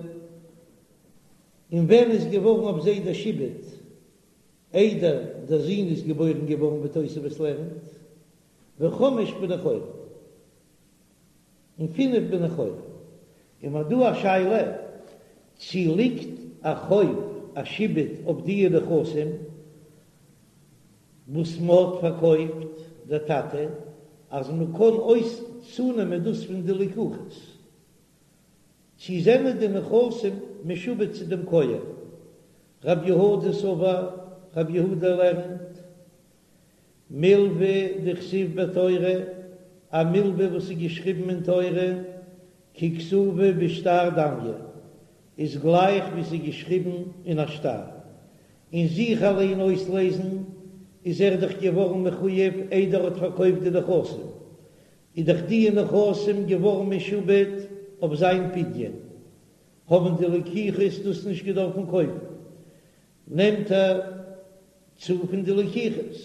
Speaker 1: און ווען איז געווארן אויף זיי דער שעבוד? איידער דער זון איז געבוירן געווארן ווי תוספות לערנט, וחמש בני חורין. און פינף בני חורין. און מ'האט דא א שאלה צי ליגט א חוב א שעבוד אויף דיע נכסים וואס מ'האט פארקויפט דער טאטע אז מ'קען אויס צונעמען דאס פון די לקוחות, צי זענען די נכסים משועבד צו דעם כהן. רב יהודה סבר, רב יהודה לערנט מלוה דכתיב בתורה, א מלוה וואס איז געשריבן אין תורה, ככתובה בשטר דמיא, איז גלייך ווי ס'איז געשריבן אין א שטר, און זיך אליין אויסלעזן איז ער דאך געווארן מחויב איידער ער האט פארקויפט די נכסים, איז דאך די נכסים געווארן משועבד אויף זיין פדיון, האבן די לקוחות דאס נישט געדארפן קויפן, נעמט ער צו פון די לקוחות,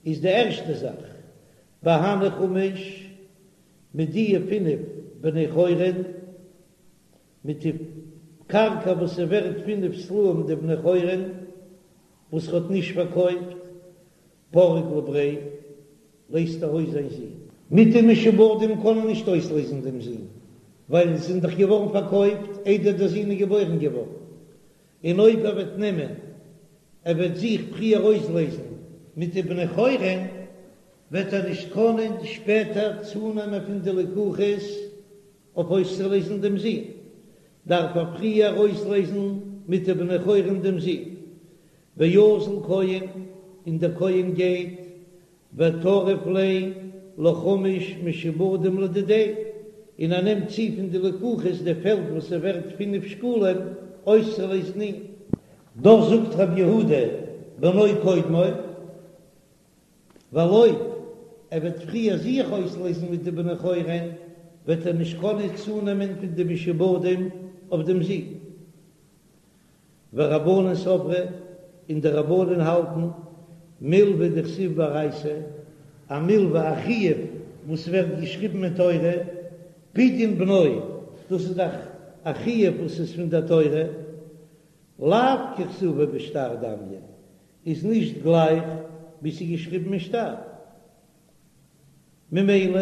Speaker 1: איז די ערשטע זאך בהני חמש מיט דיע פינף בני חורין, מיט די קרקע וואס איז ווערט פינף סלעים די בני חורין וואס ער האט נישט פארקויפט, פריק לבריה, לייזט ער אויס זיין זון. מיט די משועבדים קען ער נישט אויסלייזן דעם זון, ווייל זיי זענען דאך געווארן פארקויפט איידער דער זון איז געבוירן געווארן, און אויב ער וועט נעמען, ער וועט זיך פריער אויסלייזן מיט די בני חורין, וועט ער נישט קענען שפעטער צונעמען פון די לקוחות אויף אויסצולייזן דעם זון, דארף ער פריער אויסלייזן מיט די בני חורין דעם זון. ואזיל כהן, און דער כהן גייט וטריף ליה לחמש משועבדים לדידיה, און ער נעמט צו פון די לקוחות די פעלד וואס איז ווערט פינף שקלים אויסצולייזן אים. דאס זאגט רבי יהודה בנו קודמו, ווייל אויב ער וועט פריער זיך אויסלייזן מיט די בני חורין וועט ער נישט קענען צונעמען פון די משועבדים אויף דעם זון. ורבנן סברי, און די רבנן האלטן, מלוה דכתיב באורייתא, א מלוה א חיוב וואס ווערט געשריבן אין תורה, פדיון בנו, דאס איז דאך א חיוב וואס איז פון דער תורה, לאו ככתובה בשטר דמיא, איז נישט גלייך ווי ס'איז געשריבן אין שטר. ממילא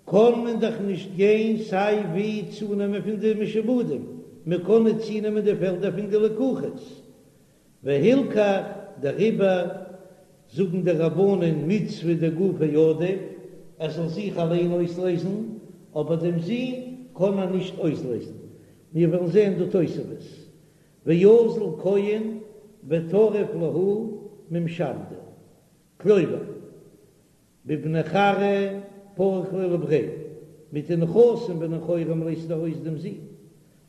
Speaker 1: קען מען דאך נישט גיין סיי ווי צונעמען פון די משועבדים, מען קען נישט צונעמען די פעלדער פון די לקוחות, והלכך דעריבער זאגן די רבנן מצוה דגופיה עדיף, ער זאל זיך אליין אויסלייזן, אבער דעם זון קען ער נישט אויסלייזן, מיר וועלן זען דא תוספות, ואזיל כהן וטריף להו ממשעבדי. כלומר, בבני כרעא פריק ליה לבריה, מיט די נכסים בני חורין לייזט ער אויס דעם זון,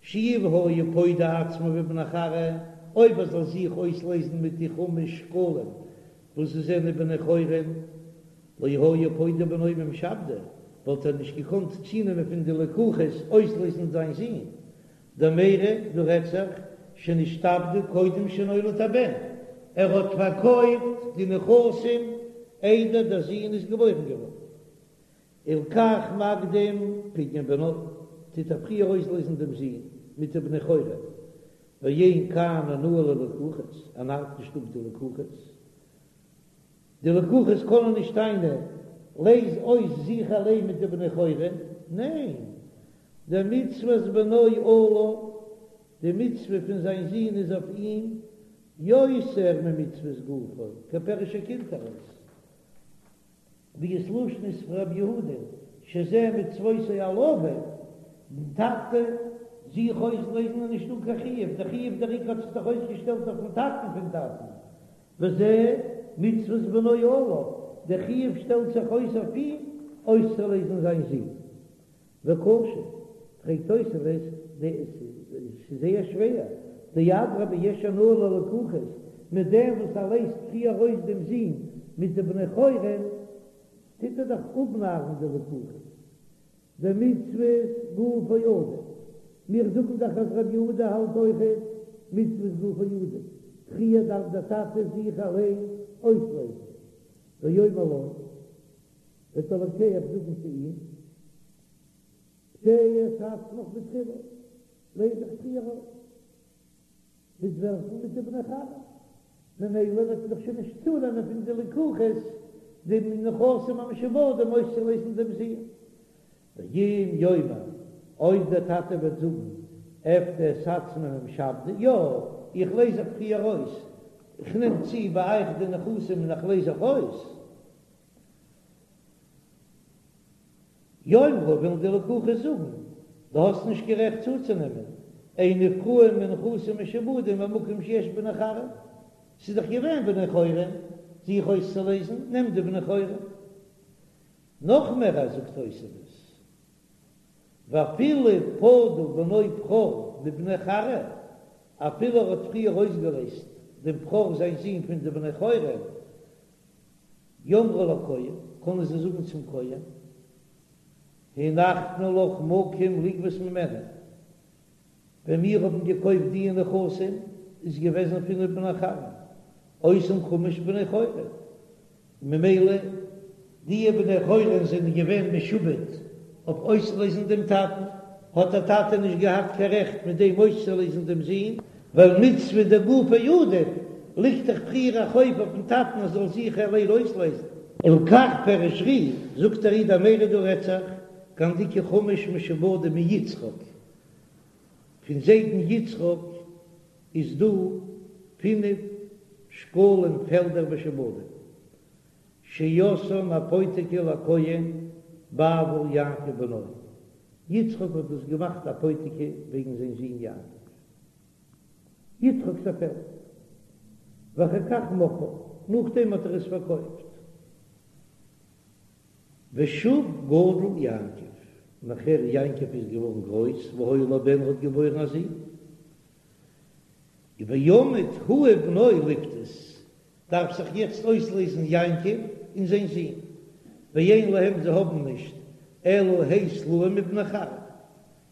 Speaker 1: שאי היה פודה עצמו בבני כרעא, אויב ער זאל זיך אויסלייזן מיט די חמש שקלים וואס זיי זענען בני חורין, לא היה פודה בנו ממשעבדי, וואלט ער נישט געקאנט צונעמען פון די לקוחות אויסלייזן זיין זון, דמיירי, דא רעדט זיך שנשתעבדו קודם שנולד הבן, ער האט פארקויפט די נכסים איידער דער זון איז געבוירן געווארן, הלכך מקדים פדיון בנו, טוט ער פריער אויסלייזן דעם זון מיט די בני חורין, ואין כאן אונאה ללקוחות, ער נארט נישט אפ די לקוחות, די לקוחות קענען נישט טענה'ן, לייז אויס זיך אליין מיט די בני חורין, ניין, דמצוות בנו עליו, די מצוה פון זיין זון איז אויף אים, יותר ממצוות גופו, כפירוש הקונטרס. ווי עס לשון איז פון רבי יהודה שזה מצוותו על אביו, דעם טאטע זיך אויסלייזן איז נישטא קיין חיוב, דער חיוב דער עיקר האט זיך דאך אויסגעשטעלט אויפן טאטן פון טאטן, וזה מצוות בנו עליו, דער חיוב שטעלט זיך אויס אויף אים אויסצולייזן זיין זון. וקשה, פרעגט תוספות, ס'איז זייער שווער, דאדרבה יש הנאה ללקוחות, מיט דעם וואס ער לייזט פריער אויס דעם זון מיט די בני חורין, טוט ער דאך אפנארן די לקוחות. דמצוות גופו עדיף, מיר זאגן דאך אז רבי יהודה האלט אויכעט מצוות גופו עדיף, פריער דארף דער טאטע זיך אליין אויסלייזן, ויאמר לו, וועט דער לוקח זאגן צו אים, פדה את עצמך בתחילה, לייז זיך פריער אויס, מיט וועלכן? מיט די בני חורין, ממילא וועט מען דאך שוין נישט צונעמען פון די לקוחות די נכסים המשועבדים אויסצולייזן דעם זון. ואם יאמר, אויב דער טאטע וועט זאגן, אפדה את עצמי ממשעבדי, יא, איך לייז זיך פריער אויס, איך נעם צו ביי אייך די נכסים און איך לייז זיך אויס, יאמרו וועלן די לקוחות זאגן, דו האסט נישט קיין רעכט צוצונעמען, אין נפרעין מנכסים משועבדים במקום שיש בני חורין, ס'איז דאך געווען בני חורין, זיך אויסצולייזן, נעם די בני חורין. נאך מער אז זאגט תוספות, ואפילו פדה בנו בכור מבני חורין, אפילו ער האט פריער אויסגעלייזט דעם בכור זיין זון פון די בני חורין, יאמרו לכהן, קענען זיי זאגן צום כהן, הנחנו לך מקום לגבות ממנו, ווען מיר האבן געקויפט דיע נכסים איז געוועזן פינף בני חורין, אותם חמש בני חורין, ממילא דיע בני חורין זענען געווען משועבד אויף אויסלייזן דעם טאטן, האט דער טאטע נישט געהאט קיין רעכט מיט דעם אויסצולייזן דעם זון, ווייל מצוה דגופיה עדיף, ליגט דאך פריער א חוב אויפן טאטן ער זאל זיך אליין אויסלייזן. ולכך פירש ר"י, זאגט דער ר"י דמיירי דא רעדט זיך, כגון דאיכא חמש משועבדים מיצחק, פון זיידן יצחק איז דא פינף שקלים פעלדער משועבדים, שעשאן אפותיקי לכהן בעבור יעקב בנו, יצחק האט דאס געמאכט אפותיקי וועגן זיין זון יעקב, יצחק'ס א פעלד, ואחר כך מכרה, נאכדעם האט ער עס פארקויפט, ושוב גדל יעקב, נאכער יעקב איז געווארן גרויס, והיה לו בן האט געבוירן א זון, ועמד הוא ובנו לפדות, דארף זיך יעצט אויסלייזן יעקב און זיין זון, ואין להם זיי האבן נישט אלא ה' סלעים מבני חורין,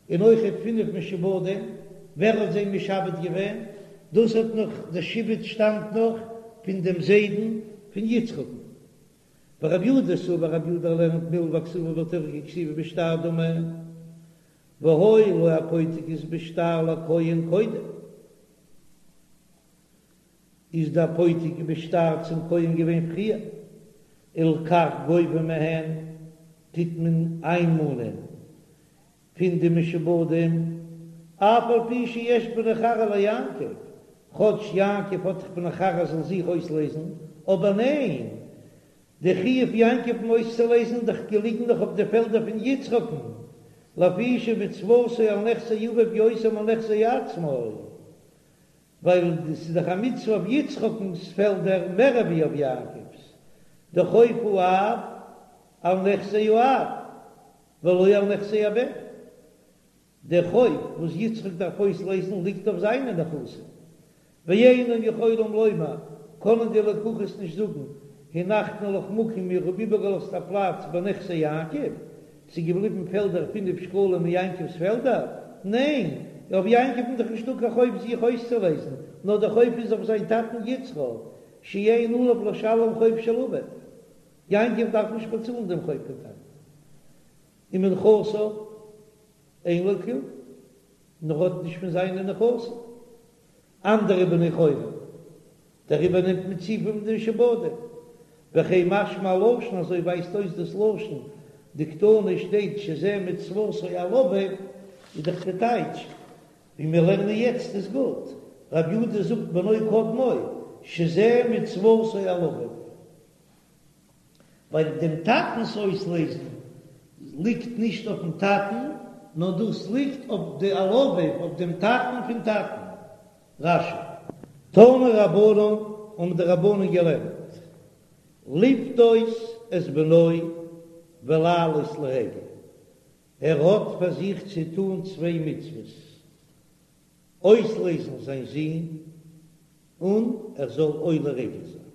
Speaker 1: און אויכעט פינף משועבדים, ווער האט זיי משעבד געווען? דאס האט נאך די שעבוד שטאמט נאך פון דעם זיידן פון יצחק'ן. ורבי יהודה סבר רבי יהודה לערנט מלוה הכתובה בתורה ככתיבה בשטר דמי, והיו לו אפותיקית בשטר לכהן קודם. איז די אפותיקי בשטר צום כהן געווען פריער, ולכך גובה מהן, טוט מען איינמאנען פון די משועבדים, אף על פי שיש בני חורין ליעקב, כאטש יעקב האט דאך בני חורין זאל זיך אויסלייזן, אבער ניין, די חיוב יעקב'ן אויסצולייזן דאך געליגן נאך אויף די פעלדער פון יצחק'ן, לפי שמצוותו על נכסי אביו יותר מנכסי עצמו. ווייל ס'איז דאך א מצוה אויף יצחק'נס פעלדער מער ווי אויף יעקב'ס, דחוב האב על נכסי האב ולא על נכסי הבן, דער חוב וואס יצחק דארף אויסלייזן ליגט אויף זיינע נכסים, ואינן יכולים לומר, קענען די לקוחות נישט זאגן, הנחנו לך מקום מיר האבן איבערגעלאזט א פלאץ בנכסי יעקב, ס'איז געבליבן פעלדער פינף שקלים אין יעקב'ס פעלדער? ניין, אויף יעקב'ן איז דאך נישטא קיין חוב זיך אויסצולייזן, נאר דער חוב איז אויף זיין טאטן יצחק, שאין עליו לשלם חוב של אביו. יעקב דארף נישט באצאלן דעם חוב פון טאטן. ומנכסיו אין לו כלום, און ער האט נישט פון זיינע נכסים. אנדערע בני חורין, דעריבער נעמט מען צו פון די משועבדים. וכן משמע הלשון, אזוי ווייזט אויס דאס לשון, דקתני שטייט שזה מצוותו על אביו, איז דאך די טייטש, ווי מיר לערנען יעצט איז גוט, רבי יהודה זאגט בנו קודמו, שזה מצוותו על אביו. ווייל דעם טאטנ'ס אויסלעזן ליגט נישט אויפן טאטן, נאר דאס ליגט אויף די על אביו, אויף דעם טאטן פון טאטן. רש"י. תנו רבנן, האבן די רבנן געלערנט, לפדות את בנו ולעלות לרגל, ער האט פאר זיך צו טאן צוויי מצוות, אויסלעזן זיין זון און ער זאל עולה רגל זיין.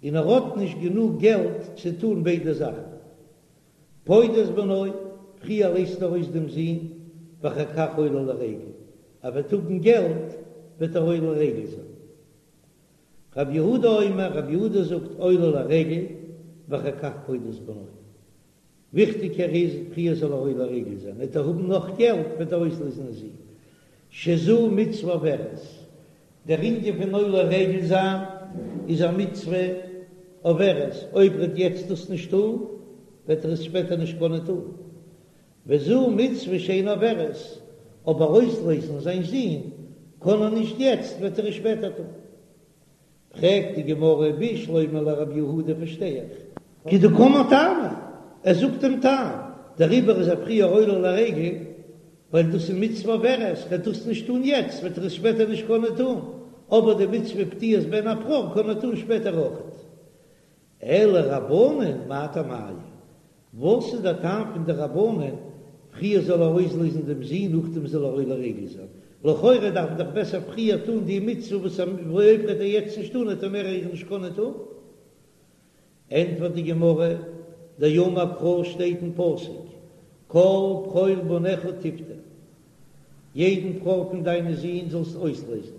Speaker 1: און ער האט נישט גענוג געלט צו טון ביידע זאכן. פודה את בנו, פריער לייזט ער אויס דעם זון, ואחר כך עולה לרגל, ער וועט האבן געלט וועט ער עולה רגל זיין. רב יהודה אומר, רב יהודה זאגט עולה לרגל ואחר כך פודה את בנו. וויכטיגער איז פריער זאל ער עולה רגל זיין, וועט ער האבן נאך געלט וועט ער אויסלעזן זון. שזו מצוה עוברת, דער ענין פון עולה רגל זיין איז א מצוה עוברת, אויב ער וועט יעצט דאס נישט טון וועט ער עס שפעטער נישט קענען טון, וזו מצוה שאינה עוברת, אבער אויסלעזן זיין זון קען ער נישט יעצט וועט ער עס שפעטער טון. פרעגט די גמרא בשלמא לרב יהודה פארשטיי איך. כדקאמר טעמא, ער זאגט דעם טעם, דעריבער איז ער פריער עולה לרגל, ווייל דאס איז מצוה עוברת, וועט דאס נישט טון יעצט וועט ער עס שפעטער נישט קענען טון, אבער די מצוה פדיית בן הבכור קען ער טון שפעטער אויכעט. אלא רבנן מאי טעמייהו? וואס איז דער טעם פון די רבנן, פריער זאל ער אויסלעזן דעם זון נאכדעם זאל ער עולה רגל זיין? לכאורה דארף מען דאך בעסער פריער טון די מצוה וואס אויב וועט ער יעצט נישט טון וועט ער מער איר נישט קענען טון. ענטפערט די גמרא, דאמר קרא שטייט אין פסוק כל בכור בניך תפדה, יעדן בכור פון דיינע זין זאלסט אויסלעזן,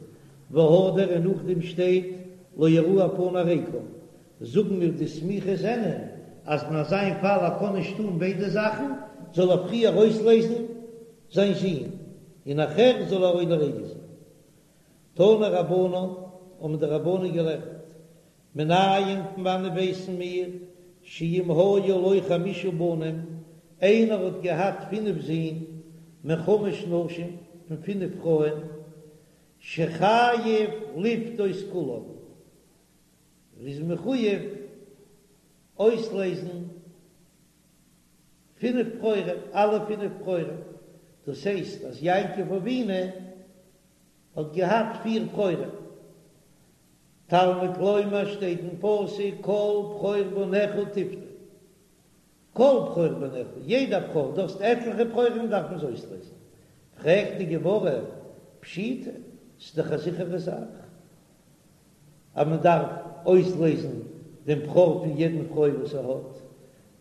Speaker 1: והדר און נאכדעם שטייט לא יראו פני ריקם, זאגן מיר די סמיכות זענען אז אין אזא פאל ער קען נישט טון ביידע זאכן, זאל ער פריער אויסלעזן זיין זון און נאכער זאל ער עולה רגל זיין. תנו רבנן, האבן די רבנן געלערנט, מנין פון וואנען ווייסן מיר שאם היו לו חמשה בנים, איינער האט געהאט פינף זין, מחמש נשים, פון פינף פרויען, שחייב לפדות כולם, ער איז מחויב אויסלעזן פינף בכורים, אלע פינף בכורים, דאס הייסט אז יעקב אבינו האט געהאט פיר בכורים, תלמוד לומר שטייט אין פסוק כל בכור בניך תפדה, כל בכור בניך, יעדע בכור, דו האסט עטליכע בכורים דארף מען זיי אויסלעזן, פרעגט די גמרא, פשיטא, ס'איז דאך א זיכערע זאך אז מען דארף אויסלעזן דעם בכור פון יעדן פרוי וואס ער האט,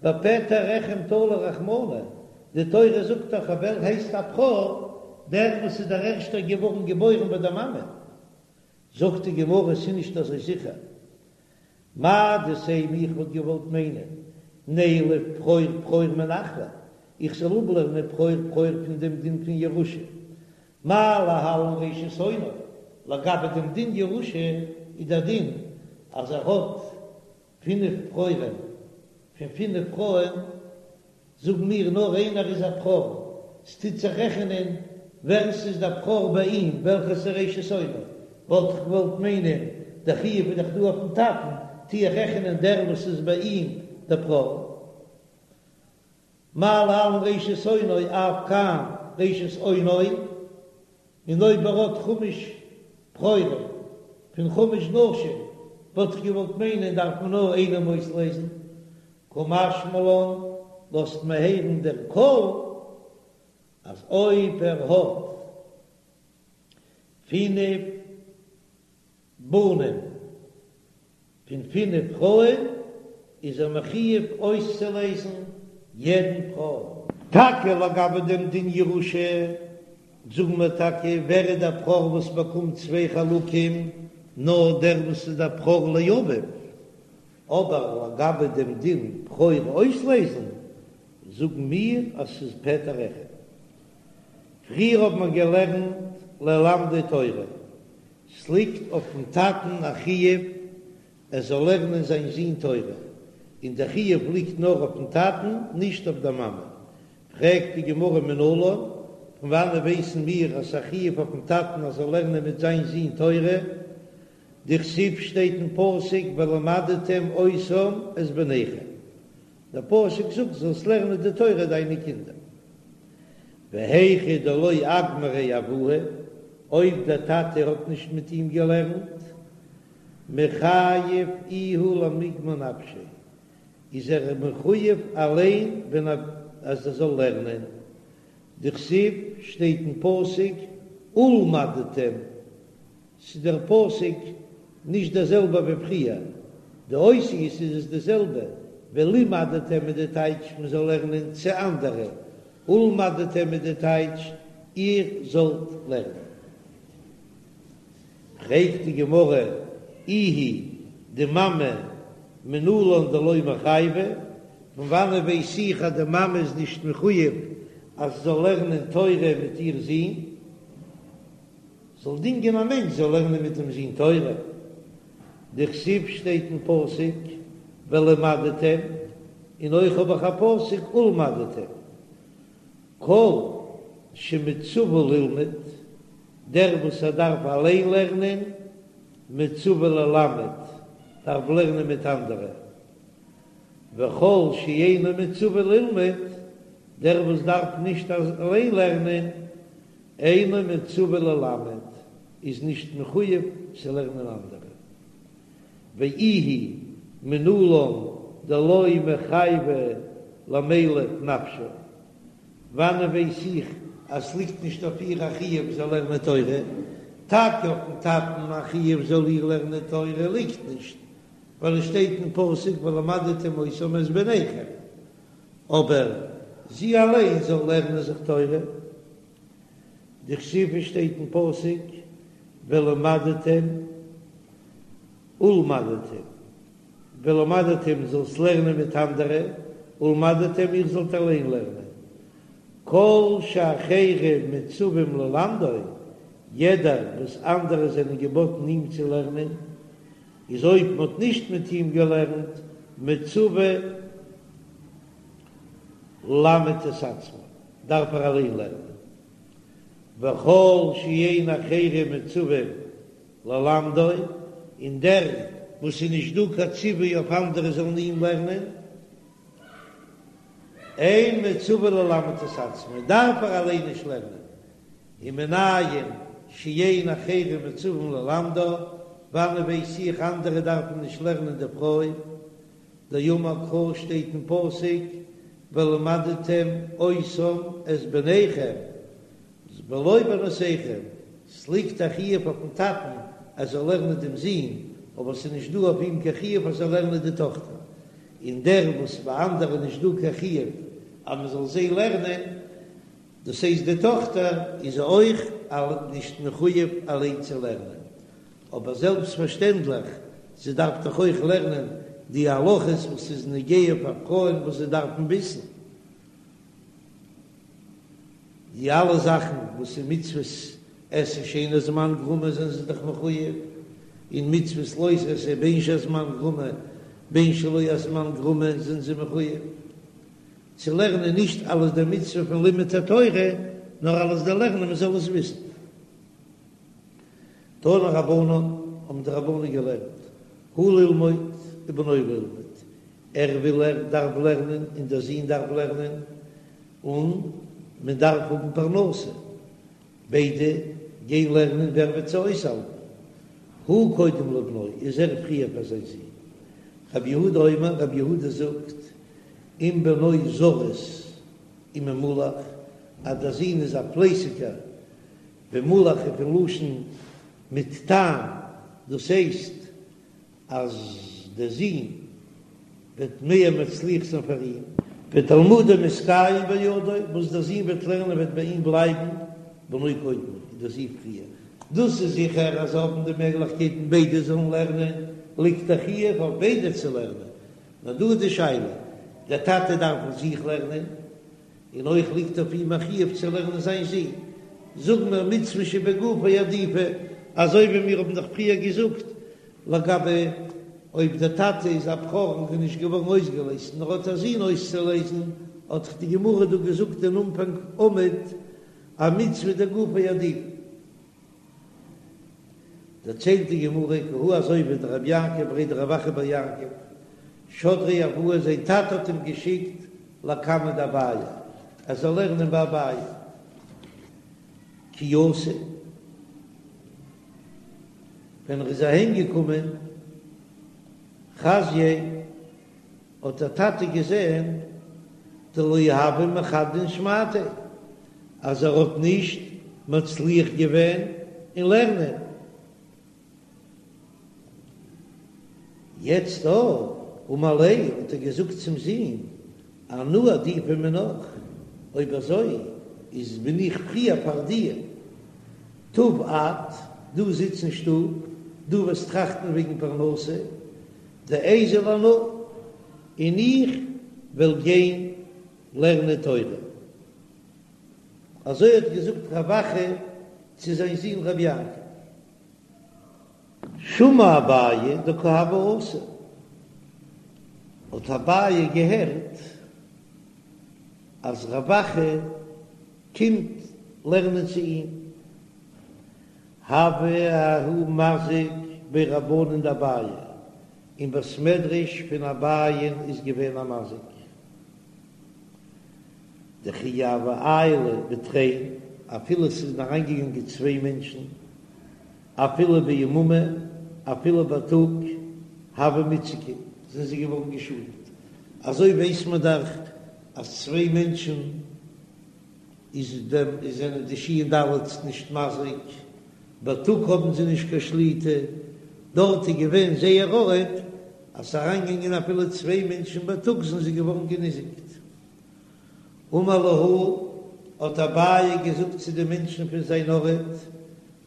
Speaker 1: בפטר רחם תלי רחמנא, די תורה זאגט דאך אז ווער הייסט א בכור, דער וואס איז דער ערשטער געווארן געבוירן ביי דער מאמע, זאגט די גמרא ס'איז נישט אזוי זיכער, מהו דתימא איך וואלט געוואלט מיינען נילף בכור בכור מנחלה, איך זאל אפלערנען בכור בכור פון דעם דין פון ירושה, מה להלן ראשית אונו, לגבי דעם דין ירושה איז דער דין אז ער האט פינף בכורים פון פינף פרויען, זאגן מיר נאר איינער איז א בכור, ס'טוט זיך רעכענען ווער ס'איז דער בכור ביי אים, וועלכער ס'איז ראשית אונו, וואלט איך געוואלט מיינען דער חיוב איז דאך דא אויפן טאטן, טו איך רעכענען דער וואס איז ביי אים דער בכור. מה להלן ראשית אונו אף כאן ראשית אונו, און אויב ער האט חמש בכורים פון חמש נשים וואלט איך געוואלט מיינען דארף מען נאר איינעם אויסלעזן, קא משמע לן לאזט מען הערן דער כל אז אויב ער האט פינף בנים פון פינף פרויען איז ער מחויב אויסצולעזן יעדן בכור. טאקע לגבי דעם דין ירושה זאגן מיר טאקע ווער איז דער בכור וואס באקומט צוויי חלקים, נאר דער וואס איז דער בכור לאביו, אבער לגבי דעם דין בכור אויסלעזן זאגן מיר אז ס'איז פטר רחם. פריער האט מען געלערנט ללמדו תורה, ס'ליגט אויפן טאטן א חיוב ער זאל לערנען זיין זון תורה, און דער חיוב ליגט נאר אויפן טאטן נישט אויף דער מאמע. פרעגט די גמרא מנלן, פון וואנען ווייסן מיר אז ס'א חיוב אויפן טאטן ער זאל לערנען מיט זיין זון תורה? דכתיב שטייט אין פסוק ולמדתם אותם את בניכם, דער פסוק זאגט זאלסט לערנען די תורה דיינע קינדער. והיכא דלא אגמריה אבוה, אויב דער טאטע האט נישט מיט אים געלערנט, מיחייב איהו למיגמר נפשיה, איז ער מחויב אליין ווען אז ער זאל לערנען. דכתיב שטייט אין פסוק ולמדתם, ס'איז דער פסוק נישט דער זעלבער ווי פריער, די אותיות איז עס די זעלבע, ולמדתם איז די טייטש מען זאל לערנען צו אנדערע, ולמדתם איז די טייטש איר זאלט לערנען. פרעגט די גמרא, איהי די מאמע מנלן דלא מיחייבא, פון וואנען ווייס איך אז די מאמע איז נישט מחויב אז זי זאל לערנען תורה מיט איר זון? זאל דינגען א מענטש זאל לערנען מיט דעם זון תורה, דכתיב שטייט אין פסוק ולמדתם, און אויך האב איך א פסוק ולמדתם, כל שמצווה ללמוד, דער וואס ער דארף אליין לערנען, מצווה ללמד, דארף לערנען מיט אנדערע, וכל שאינו מצווה ללמוד, דער וואס דארף נישט אליין לערנען, אינו מצווה ללמד, איז נישט מחויב צו לערנען אנדערע. ואיהי מנלן דלא מיחייבא למילף נפשה, וואנען ווייס איך אז ס'ליגט נישט אויף איר א חיוב זאל לערנען תורה? טאקע אויפן טאטן א חיוב זאל איר לערנען תורה ליגט נישט, ווייל עס שטייט אין פסוק ולמדתם אותם את בניכם, אבער זי אליין זאל לערנען זיך תורה. דכתיב שטייט אין פסוק ולמדתם ולמדתם, ולמדתם זאלסט לערנען מיט אנדערע, ולמדתם איר זאלט אליין לערנען. כל שאחרים מצווים ללמדו, יעדער וואס אנדערע זענען געבאטן אים צו לערנען, איז אויב מען האט נישט מיט אים געלערנט, מצווה ללמד את עצמו, דארף ער אליין לערנען. וכל שאין אחרים מצווים ללמדו, און דער וואס איז נישט דא קיין ציווי אויף אנדערע זאלן אים לערנען, אין מצווה ללמד את עצמו, דארף ער אליין נישט לערנען. ומנין שאין אחרים מצווים ללמדה, וואנען ווייס איך אנדערע דארפן נישט לערנען די פרוי? דאמר קרא שטייט אין פסוק ולמדתם אותם את בניכם ולא בנותיכם, ס'ליגט א חיוב אויפן טאטן אז ער זאל לערנען דעם זון, אבער ס'איז נישט דא אויף אים קיין חיוב אז ער זאל לערנען די טאכטער, און דער וואס ביי אנדערע נישט דא קיין חיוב אז מ'זאל זיי לערנען, דאס הייסט די טאכטער איז אויך נישט מחויב אליין צו לערנען, אבער זעלבסט פארשטענדליך זי דארף דאך אויך לערנען די הלכות וואס איז נוגע פאר פרויען וואס זיי דארפן וויסן די אלע זאכן וואס איז מצוות עשה שאין הזמן גרמא זענען זיי דאך מחויב, און מצוות לא תעשה בין שהזמן גרמא בין שלא הזמן גרמא זענען זיי מחויב. צו לערנען נישט אלס די מצוה פון לימוד התורה, נאר אלס די לערנען מען זאל עס וויסן. תנו רבנן, האבן די רבנן געלערנט, הוא ללמוד ובנו ללמוד, ער וויל ער דארף לערנען און דער זון דארף לערנען, און מען דארף האבן פרנסה, ביידע גיין לערנען ווער וועט זיי אויסהאלטן? הוא קודם לבנו, איז ער פריער פאר זיין זון. רבי יהודה אומר, רבי יהודה זאגט, אם בנו זריז וממולח, אז דער זון איז א פלייסיגער, ומולח איז פון לשון מיט טעם, דאס הייסט אז דער זון וועט מער מצליח זיין פאר אים. ותלמודו מתקיים בידו, וואס דער זון וועט לערנען וועט ביי אים בלייבן, בנו קודם, איז דער זון פריער. דאס איז זיכער אז זיי האבן די מעגליכקייטן ביידע זאלן לערנען, ליגט א חיוב אויף ביידע צו לערנען. נאר דא איז די שאלה, דער טאטע דארף אויף זיך לערנען, און אויך ליגט אויף אים א חיוב צו לערנען זיין זון. זאגן מיר מצוה שבגופו עדיפא, אזוי ווי מיר האבן דאך פריער געזאגט לגבי אויב דער טאטע איז א בכור און איז נישט געווארן אויסגעלייזט נאר האט א זון אויסצולייזן, האט דאך די גמרא דא געזאגט אין אנפאנג עמוד אז מצוה דגופיה עדיפא. דערציילט די גמרא כי הא אזוי ווי דרבי יעקב בריה דרב אחא בר יעקב שדריה אבוה זיין טאטע האט אים געשיקט לקמיה דאביי ער זאל לערנען ביי אביי כי אתא ווען ער איז אהיים געקומען חזייה האט דער טאטע געזען דלא הוה מחדדין שמעתיה אז ער האט נישט מצליח געווען אין לערנען. יעצט דא אמר ליה האט ער געזאגט צום זון אנא עדיפא מינך, אויב אזוי איז בין איך פריער פאר דיר, תיב את, דו זיץ אין שטוב, דו וועסט טראכטן וועגן פרנסה, דאיזיל אנא, און איך וועל גיין לערנען תורה. אזוי האט געזאגט רב אחא צו זיין זון רב יעקב. שמע אביי דקא הוה אתי, האט אביי געהערט אז רב אחא קומט לערנען צו אים, הוה ההוא מזיק בי רבנן דאביי, אין בית מדרש פון אביי'ן איז געווען א מזיק, דכי הוו עיילי בתרין, אפילו עס איז אריינגעגאנגען צוויי מענטשן, אפילו ביממא, אפילו בייטאג, הוו מיתזקי, זענען זיי געווארן געשאדנט. אזוי ווייסט מען דאך אז צוויי מענטשן איז דעם איז זענען די שין דלת נישט מזיק, בייטאג האבן זיי נישט קיין שליטה, דארט איז געווען זייער ארט אז ס'איז אריינגעגאנגען אפילו צוויי מענטשן בייטאג זענען זיי געווארן געניזיקט. אמר להו, האט אביי געזאגט צו די מענטשן פון זיין ארט,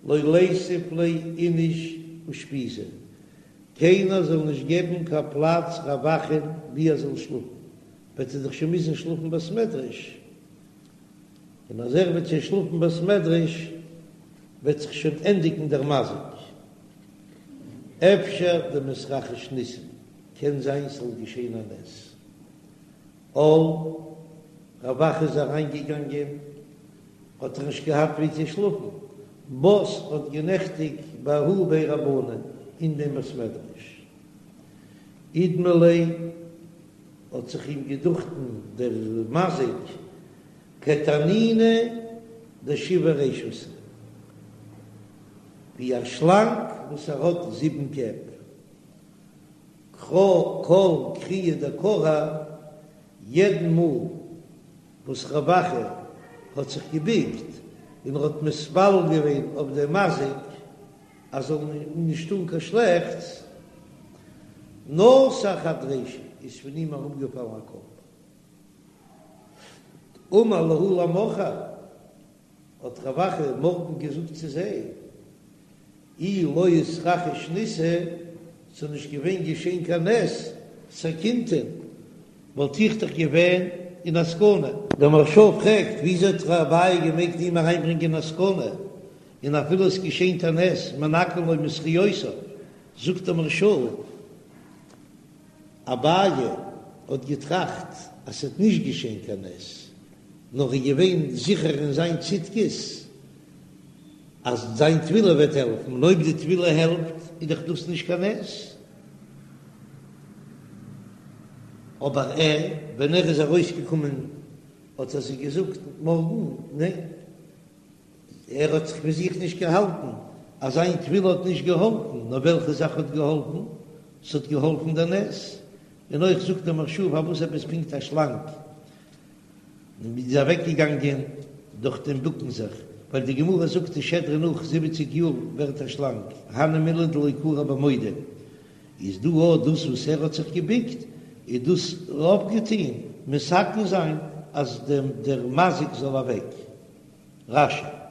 Speaker 1: לא ליתיב ליה איניש אושפיזא, קיינער זאל נישט געבן קיין פלאץ רב אחא'ן ווי ער זאל שלאפן, וועט ער דאך שוין מוזן שלאפן בית מדרש, און אז ער וועט שוין שלאפן בית מדרש וועט זיך שוין ענדיגן דער מזיק. אפשר דמתרחיש ניסא, קען זיין ס'זאל געשען א נס. על, רב אחא איז אריינגעגאנגען, האט ער נישט געהאט ווי צו שלאפן, בת האט גענעכטיגט בההוא בי רבנן אין דעם בית מדרש. אידמי ליה האט זיך אים געדוכטן דער מזיק כתנינא דשבע רישותא, ווי א שלאנג וואס ער האט זיבן קעפ. כל כריעא דכרע, יעדן מאל וואס רב אחא האט זיך געביקט און ער האט מתפלל געווען אויף דעם מזיק אז זאל נישט טון קיין שלעכטס, נתר חד רישא, איז פון אים אראפגעפאלן א קאפ. אמר להו למחר, האט רב אחא מארגן געזאגט צו זיי, אי לא איתרחיש ניסא, ס'איז נישט געווען געשען קיין נס, סכינתין, וואלט איך דאך געווען אין א סכנה. דער מהרש"א פרעגט, וויאזוי האט אביי געמעגט אים אריינברענגען אין א סכנה, און אפילו עס געשענט א נס, מנכין לו מזכיותיו, זאגט דער מהרש"א, אביי האט געטראכט אז ס'וועט נישט געשען קיין נס, נאר איז געווען זיכער אין זיין צדקות אז זיין תפילה וועט העלפן, און אויב די תפילה העלפט איז דאך דאס נישט קיין נס. אבער ער, ווען ער איז ארויסגעקומען האט ער זיי געזאגט מארגן, ניין, ער האט זיך פון זיך נישט געהאלטן אז זיין תפילה האט נישט געהאלפן, נאר וועלכע זאך האט געהאלפן? ס'האט געהאלפן דער נס. און אויך זאגט דער מהרש"א פארוואס עפעס פונקט א שלאנג איז אוועקגעגאנגען דורך דעם בוקן זיך, ווייל די גמרא זאגט די שדרה נאך זיבעציג יאר ווערט א שלאנג, הני מילי דלא כרע בעמודה, איז דא אויך דאס וואס ער האט זיך געבוקט איז דאס אויפגעטון מתקן זיין אז דער מזיק זאל אוועק. רש"י.